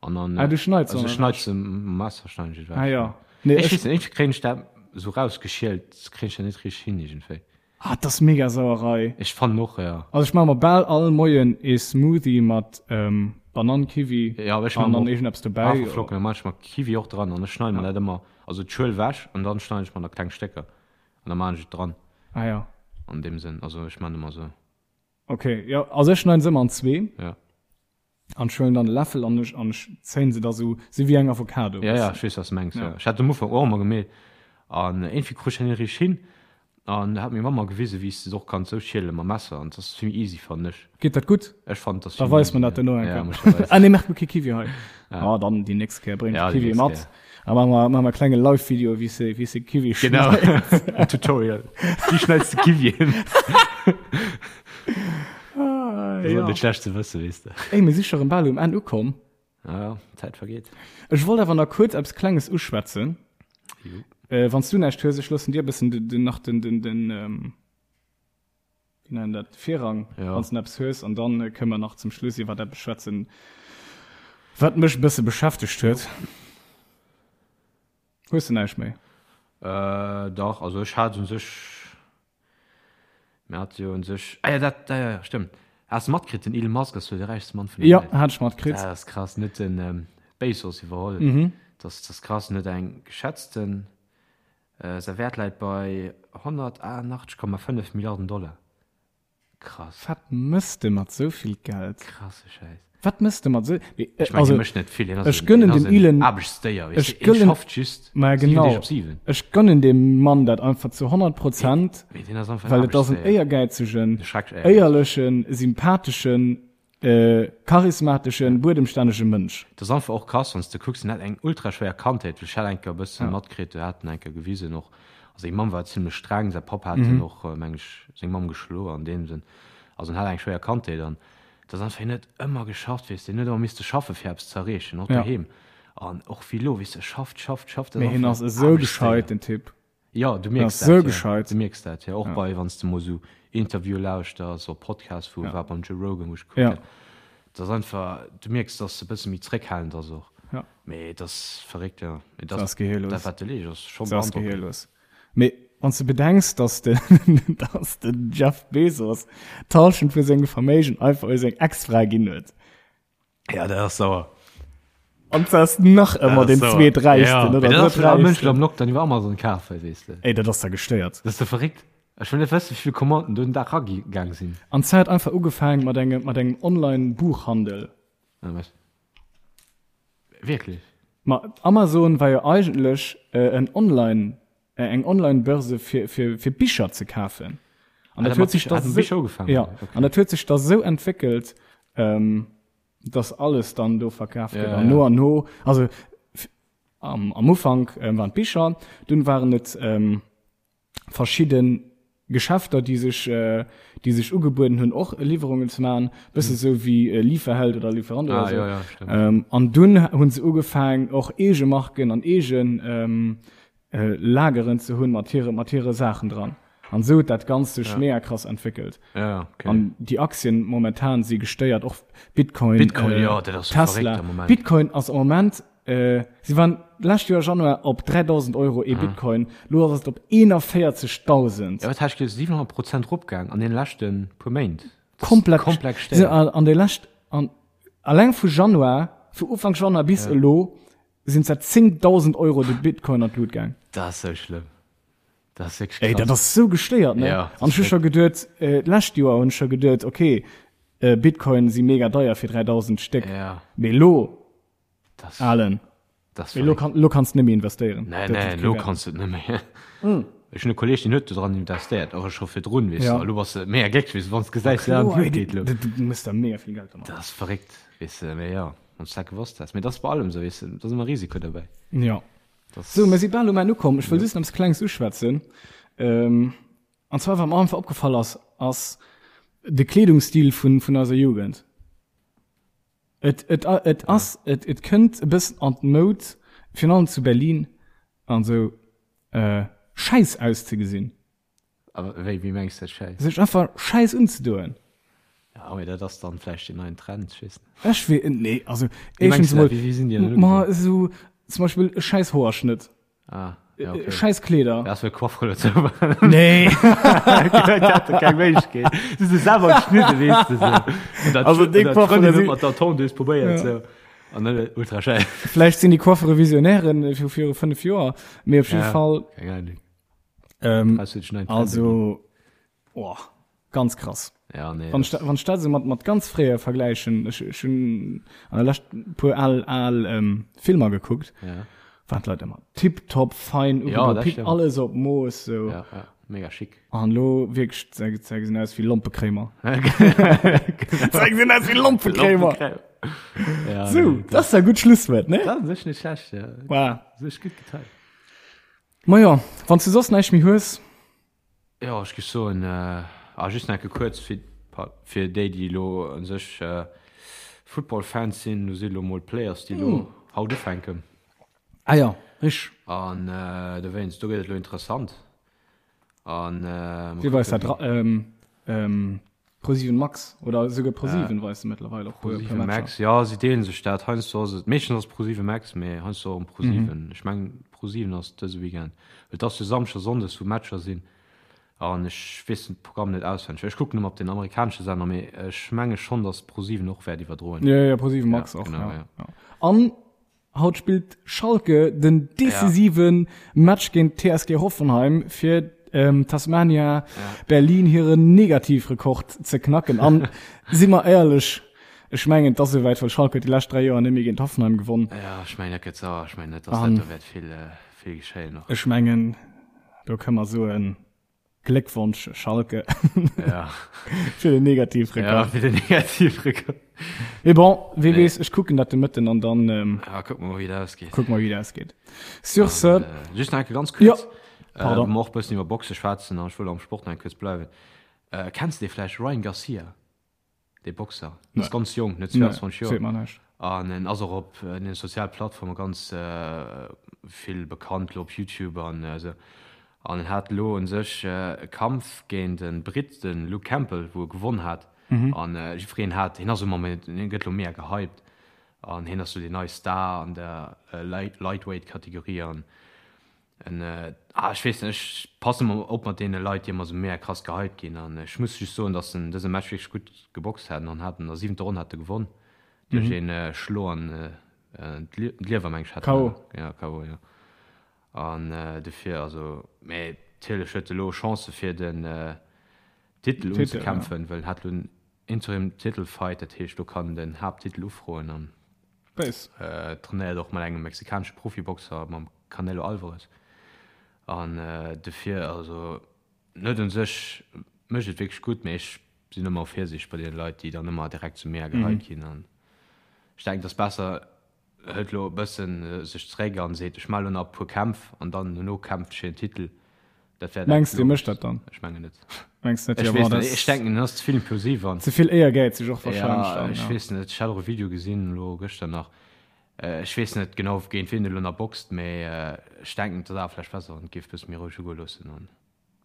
Speaker 1: an dann,
Speaker 2: Ah, du schneits se
Speaker 1: also ech
Speaker 2: ewech?
Speaker 1: schneid se mam Messer schneiden ech et ewech.
Speaker 2: Ah ja. Nee,
Speaker 1: Ech
Speaker 2: ech,
Speaker 1: weess net, iergendwéi kréien ech dat esou rausgeschielt, kréien ech dat net richteg hin iergendwéi.
Speaker 2: ah, dat ass mega Sauerei.
Speaker 1: Ech fannen och, ja.
Speaker 2: Also ech maache mer bal all Moien ee Smoothie mat Banann, Kiwi
Speaker 1: Ja, ech
Speaker 2: an
Speaker 1: maache
Speaker 2: dann
Speaker 1: mer och
Speaker 2: iergendeppes dobäi.
Speaker 1: Haferflocken, da maache ech mer Kiwi och dran an ech schneide mer
Speaker 2: Ja.
Speaker 1: dat ëmmer, also d'Schuel ewech an dann schneiden ech mer da kleng Stécker an da maachen ech et dran.
Speaker 2: Ah ja.
Speaker 1: An deem Sënn, also ech maachen ëmmer esou.
Speaker 2: Okay, jo, also ech schneiden se ëmmer an zwee.
Speaker 1: Ja.
Speaker 2: An ech huelen dann e Läffel an ech, an ech zéien se da sou, sou wéi eng Avocado.
Speaker 1: Ja, ja, ech weess, wat s de mengs, ja. Ech hat am Ufank och ëmmer gemeet an iergendwéi krut ech dat net richteg hin. An da hat meng Mamm mer gewisen, wéi s de se och kanns sou schielen mam Messer an dat ass vill méi easy, fannen ech.
Speaker 2: Geet dat gutt?
Speaker 1: Ech fannen, dat ass
Speaker 2: Da
Speaker 1: vill méi
Speaker 2: weis mer
Speaker 1: easy,
Speaker 2: dat duerno eng
Speaker 1: ja. Ja,
Speaker 2: Kéier.
Speaker 1: muss ech der weisen.
Speaker 2: Ah nee, maacht mer kee Kiwi hei.
Speaker 1: Ja.
Speaker 2: Ah, dann déi nächst Kéier bréngt
Speaker 1: Ja, déi
Speaker 2: Kiwi
Speaker 1: nächst
Speaker 2: mat.
Speaker 1: Kéier.
Speaker 2: A maache mer, maache mer e klenge Live-Video, wéi s de, wéi s de Kiwi
Speaker 1: Genau,
Speaker 2: schneits.
Speaker 1: en Tutorial. Wéi schneits de Kiwien?
Speaker 2: Ah,
Speaker 1: Dat ass
Speaker 2: ja.
Speaker 1: net schlecht ze wëssen, weess de.
Speaker 2: Ey, mir si scho rëm bal um Enn ukomm.
Speaker 1: Ja, ja, d'Zäit vergeet.
Speaker 2: Ech wollt awer nach kuerz eppes Klenges uschwätzen.
Speaker 1: Jo.
Speaker 2: Äh, wann s du näischt hues, ech loossen dir e bëssen den, den, nach den, den, den, ähm, wéi nennen dat, Virrang,
Speaker 1: Ja.
Speaker 2: wann s du eppes hues, an dann äh, kënnen mer nach zum Schluss iwwer eppes schwätzen, wat mech e bësse beschäftegt huet. Hues du näischt méi?
Speaker 1: Äh, dach, also ech hat un sech, mir hate jo un sech, ah ja, dat, ja, ja, stëmmt. Has de matkritt, den Elon Musk ass jo de räichste Mann vun der
Speaker 2: Ja,
Speaker 1: Welt.
Speaker 2: hat ech matkritt.
Speaker 1: Dat ass krass, en huet den Bezos iwwerholl.
Speaker 2: Mhm.
Speaker 1: Dat ass krass, en huet eng geschätzten, säi Wäert läit bei 188,5 Milliarden Dollar. Krass.
Speaker 2: Wat mëss de mat sou vill Geld?
Speaker 1: Krasse Schäiss.
Speaker 2: Wat mëss de mat sou, mee,
Speaker 1: Ech mengen,
Speaker 2: also,
Speaker 1: hie mécht net vill. Hien ass
Speaker 2: ech
Speaker 1: en,
Speaker 2: gönnen
Speaker 1: hien ass
Speaker 2: dem
Speaker 1: en
Speaker 2: Elon,
Speaker 1: Aarbechtsdéier, weess
Speaker 2: ech
Speaker 1: de. Hien
Speaker 2: gëllen,
Speaker 1: schafft just
Speaker 2: ma
Speaker 1: 7 Deeg
Speaker 2: genau,
Speaker 1: op 7.
Speaker 2: ech gönnen deem Mann dat einfach zu 100 Prozent,
Speaker 1: Mee hien ass einfach en
Speaker 2: well et ass en
Speaker 1: Aarbechtsdéier.
Speaker 2: éiergäizegen,
Speaker 1: E schrecklech éiergäizegen.
Speaker 2: éierlechen, sympatheschen, charismateschen, buedemstännege Mënsch.
Speaker 1: Dat ass einfach och krass, wann s de kucks, en hat eng ultra schwéier Kandheet, well ech hat eng Kéier e bësse matkritt, do hat en eng Kéier gewisen och, also seng Mamm war zimlech streng, säi Papp hat en och, meng ech, seng Mamm geschloe an deem Sënn, also en hat eng schwéier Kandheet an et ass einfach, hien huet ëmmer geschafft, weess de, hien huet ëmmer misste schaffe fir eppes ze erreechen, och doheem an och wéi elo, weess de, schafft, schafft, schafft,
Speaker 2: Mee hien ass esou gescheit, den Typ.
Speaker 1: Jo, du mierks
Speaker 2: dat, jo.
Speaker 1: Gescheit. Du mierks dat, jo. Och bei, wann s de mol esou Interviewe lauschters oder Podcasts vu, war beim Joe Rogan, wou ech gekuckt
Speaker 2: Ja.
Speaker 1: hat. Dat ass einfach, du mierks, dass e bësse méi zréckhalend ass och.
Speaker 2: Ja.
Speaker 1: Mee et ass verréckt, jo. Mee
Speaker 2: Dat ass gehirlos.
Speaker 1: Dat, wat de leescht, ass scho
Speaker 2: Dat ass
Speaker 1: beandrockend.
Speaker 2: gehirlos. Mee wann s de bedenks, dass de, dass den Jeff Bezos d'Hallschent vu sengem Verméigen einfach u seng Ex-Fra ginn huet.
Speaker 1: Ja, dat ass sauer.
Speaker 2: An dat ass nach ëmmer den zweeträichsten
Speaker 1: ja.
Speaker 2: oder
Speaker 1: Dat ass
Speaker 2: drëtträichsten.
Speaker 1: Mënschen am Lockdown iwwer Amazon kafen, weess de.
Speaker 2: Ey, dat ass da gestéiert.
Speaker 1: Dat ass da verréckt. Ech wëll net wëssen, wéi vill Commanden do den Dag ragaang sinn.
Speaker 2: An d'Zäit einfach ugefaang mat engem, mat engem Online-Buchhandel.
Speaker 1: Ah, was? Wierklech?
Speaker 2: Ma Amazon war jo eigentlech en Online, eng Online-Börse fir, fir, fir Bicher ze kafen. An dat huet sech da
Speaker 1: sou,
Speaker 2: ja, an dat huet sech da sou entwéckelt, ähm, dass alles dann do verkaf gëtt. An no an no, also am, am Ufank ähm, waren d'Bicher, dunn waren et ähm, verschidde Geschäfter, déi sech, déi sech ugebueden hunn, och Liwwerungen ze maachen, bësse sou wéi Lieferheld oder Lieferando oder
Speaker 1: Ah,
Speaker 2: sou.
Speaker 1: ja, ja, stimmt.
Speaker 2: An dunn hu se ugefaang, och eege Marken an eege Lageren ze hunn mat hire, mat hire Saachen dran. An sou huet dat Ganzt sech mega krass entwéckelt.
Speaker 1: Ja, okay.
Speaker 2: An déi Aktien momentan si gestéiert, och Bitcoin,
Speaker 1: Bitcoin, jo, dat ass sou verréckt
Speaker 2: Tesla.
Speaker 1: am Moment.
Speaker 2: Bitcoin ass am Moment Si waren d'lescht Joer Januar op 3.000 Euro ee Bitcoin, lo ass et op 41.000.
Speaker 1: Jo, wat hat ech gelies, 700 Prozent eropgaang an deene leschte puer Méint.
Speaker 2: Komplett,
Speaker 1: Komplett
Speaker 2: si
Speaker 1: gestéiert.
Speaker 2: an de lescht, an alleng vu Januar, vu Ufank Januar bis elo sinn se 10.000 Euro de Bitcoin an d'Lut gaang.
Speaker 1: Dat ass sou schlëmm. Dat ass wierklech
Speaker 2: Ey,
Speaker 1: krass.
Speaker 2: dat ass sou gestéiert, ne?
Speaker 1: Ja, dat
Speaker 2: An
Speaker 1: ass
Speaker 2: ech hu scho geduet, d'lescht Joer hunn ech scho geduet, okay, Bitcoin si mega deier fir 3.000 d'Stéck,
Speaker 1: Ja.
Speaker 2: mee elo
Speaker 1: Das,
Speaker 2: Alen.
Speaker 1: Das
Speaker 2: Mee lo, kann, lo kanns du net méi investéieren.
Speaker 1: Nee, nee, lo kanns du net méi. Mm. Ech hunn e Kolleg, deen huet do dran investéiert, och scho virdrun, weess ja. du. Lo bass de mega glécklech, weess du, wann s gesäis, ja,
Speaker 2: Kloer,
Speaker 1: et geet lo.
Speaker 2: Du, du muss da mega vill Geld domat.
Speaker 1: Dat ass verréckt, weess du, mee ja, wann s dat gewosst häss. Mee dat ass bei allem esou, weess du, da ass ëmmer Risiko dobäi.
Speaker 2: Ja.
Speaker 1: Das
Speaker 2: So, mir si bal um Enn ukomm. Ech wëll just nach eppes Klenges uschwätzen. Ähm, an zwar, wat mer einfach opgefall ass, ass de Kleedungsstil vun, vun eiser Jugend. Et, et, et ass, et, et kënnt e bëssen an d'Moud, virun allem zu Berlin an esou, äh, schäiss auszegesinn.
Speaker 1: A wéi, wéi mengs de dat schäiss?
Speaker 2: Sech einfach schäiss unzedoen.
Speaker 1: Ja, mee dat ass dann vläicht deen neien Trend, ech weess net.
Speaker 2: Ech wee, nee, also,
Speaker 1: Wéi mengs
Speaker 2: éischtens
Speaker 1: de dat?
Speaker 2: emol,
Speaker 1: Wéi, wéi sinn déi dann
Speaker 2: ma
Speaker 1: ugedoen?
Speaker 2: esou zum Beispill e schäiss Hoerschnëtt.
Speaker 1: Ah, ja, okay.
Speaker 2: Scheiß Kleeder.
Speaker 1: Ja, das Coiffeur dazu.
Speaker 2: Nee.
Speaker 1: Keng Méiglechkeet. Du se selber geschnidden, weess du so.
Speaker 2: Also déi Coiffeure si-
Speaker 1: mat der Tondeuse probéiert so. An dann ultra schäi.
Speaker 2: Vläicht sinn déi Coiffeure Visionären vu viru 5 Joer, mee op jidde Fall.
Speaker 1: Keng Ahnung.
Speaker 2: Ähm,
Speaker 1: Krass, huet schon einen Trend
Speaker 2: also, oh, ganz krass.
Speaker 1: Ja, nee.
Speaker 2: Wann ech dat, wann ech dat esou mat, mat ganz fréier vergläichen, ech, ech hunn an der Lescht e puer al, al ähm, Filmer gekuckt,
Speaker 1: Ja.
Speaker 2: waren d'Leit ëmmer tiptop, fein,
Speaker 1: Ja,
Speaker 2: ugedo,
Speaker 1: dat
Speaker 2: pip,
Speaker 1: stimmt.
Speaker 2: alles op Mooss, sou.
Speaker 1: Ja, ja. Mega schick.
Speaker 2: An lo wierklech, se, se gesinn aus wéi Lompekréimer. Se gesinn aus wéi Lompekréimer.
Speaker 1: Ja,
Speaker 2: Sou,
Speaker 1: nee,
Speaker 2: dat ass e gutt Schlusswuert, ne?
Speaker 1: Dat ass echt net schlecht, ja.
Speaker 2: Voilà.
Speaker 1: Sech gutt geteilt.
Speaker 2: Majo, wann s du soss näischt méi hues.
Speaker 1: Jo, ech géif soen, ah, just nach eng Kéier kuerz fir, fir déi, déi elo u sech. Football-Fans sinn, do si lo mol d'Players, déi lo haut ufänken.
Speaker 2: Ah ja, richteg.
Speaker 1: An dowéinst, do gëtt et lo interessant. An
Speaker 2: Wie weist dat? ProSieben Max oder esouguer ProSieben weist se mëttlerweil och
Speaker 1: puer ProSieben Max, ja, si deelen sech dat. Heiansdo ass et, meeschtens ass ProSieben Max, mee heiansdo och ProSieben. Ech mengen ProSieben ass dëse Weekend, well et ass jo Samschdes a Sonndes wou Matcher sinn an ech weess den Programm net auswenneg. Ech kucken ëmmer op den amerikanesche Sender, mee ech menge schonn, datt ProSieben och wäert iwwerdroen.
Speaker 2: Jo, jo, ProSieben Max och,
Speaker 1: ja.
Speaker 2: Ja. An Haut spillt Schalke den decisive Match géint d'TSG Hoffenheim fir Tasmania Berlin hiren Negativrekord ze knacken. An si mer éierlech, ech mengen et ass esouwäit, well Schalke huet déi lescht 3 Joer net méi géint Hoffenheim gewonn.
Speaker 1: Jo, ech mengen dat gëtt sauer. Ech mengen net, datt dat do wäert vill vill geschéien
Speaker 2: och. Ech mengen do kënne mer soen, Gléckwonsch Schalke.
Speaker 1: Ja.
Speaker 2: Fir den Negativrekord.
Speaker 1: Ja, fir den Negativrekord.
Speaker 2: Mee bon, wie nee. weess, ech kucken dat de Mëtten an dann
Speaker 1: ähm, ja, kuck mal, wéi dat ausgeet.
Speaker 2: Kuck mal, wéi dat ausgeet. Sur ce.
Speaker 1: Äh, just nach ganz kurz.
Speaker 2: Ja.
Speaker 1: Pardon. Äh, och bëssen iwwer Boxe schwätzen an ech wëll am Sport nach kurz bleiwen. Äh, kennst du vläicht Ryan Garcia? Dee Boxer ass ganz jonk, net 22 Joer. An en ass och op den soziale Plattforme ganz vill bekannt, lo op YouTube an esou. An en hat elo un sech e Kampf géint e Britt, de Luke Campbell, wou e gewonn hat. An jiddwereen hat, hien ass ëmmer méi, hien gëtt elo mega gehypt an hien ass sou deen neie Star an der Lightweight-Kategorie. An En, ah, ech weess net, ech passen ëmmer op mat deene Leit, déi ëmmer esou mega krass gehypt ginn. An ech muss just soen, dass en dëse Match wierklech gutt geboxt hat an hat an der siwenter Ronn hat e gewonn duerch een Schlo an d'Liewer, meng ech hat
Speaker 2: en.
Speaker 1: Ja, KO, jo. An dofir, also, mee natierlech huet e lo Chancë fir den Titel unzekämpfen, well en hat lo en Interim Titel Fight, dat heescht do kann en den Haapttitel ufroen an trainéiert och mat engem mexikanesche Profiboxer, mam Canelo Alvarez. An dofir, also en huet un sech, mécht et wierklech gutt, mee ech sinn ëmmer virsiichteg bei deene Leit, déi dann ëmmer direkt sou mega gehypt ginn an ech denken, et ass besser hëlt lo e bëssen sech zeréck an seet, ech maache lo nach e puer Kämpf an dann dono kämpft ech fir den Titel.
Speaker 2: Dat wär dat Mengs de, mécht dat dann?
Speaker 1: Ech mengen net.
Speaker 2: Mengs net?
Speaker 1: Ech weess net, ech denken en ass ze vill impulsiv an.
Speaker 2: Ze vill éiergäizeg och
Speaker 1: wahrscheinlech dann, ja. Ech weess net, ech hat och e Video gesinn elo gëschter nach, ech weess net genau géint wien e lo nach boxt, mee ech denken et ass awer vläicht besser wann et géif e bësse méi roueg ugoe loossen an.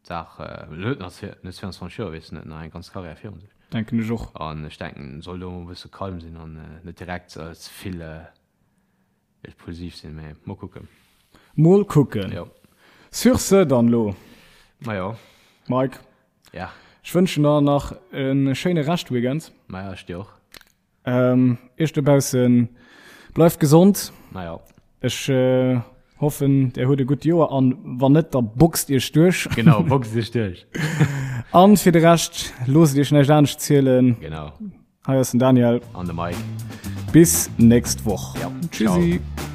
Speaker 1: D'Saach, en huet nach net 22 Joer, weess net, nach eng ganz Karriär virun
Speaker 2: sech. Denken ech och.
Speaker 1: An ech denken, en soll do emol e bësse calm sinn an net direkt ze vill impulsiv sinn. Mee mol kucken.
Speaker 2: Mol kucken.
Speaker 1: Jo.
Speaker 2: Sur ce dann lo.
Speaker 1: Majo.
Speaker 2: Mike.
Speaker 1: Ja.
Speaker 2: Ech wënschen der nach e schéine Reschtweekend.
Speaker 1: Maja, ech dir och.
Speaker 2: Ähm, Iech dobaussen, bleift gesond.
Speaker 1: Naja.
Speaker 2: Ech äh, hoffen, der huet e gutt Joer an wann net, da boxt Iech duerch.
Speaker 1: Genau, boxt Iech duerch.
Speaker 2: An fir de Rescht, loosst Iech näischt anescht zielen.
Speaker 1: Genau.
Speaker 2: Hei ass den Daniel.
Speaker 1: An de Mike.
Speaker 2: Bis nächst Woch.
Speaker 1: Ja.
Speaker 2: Tschüssi.
Speaker 1: Ciao.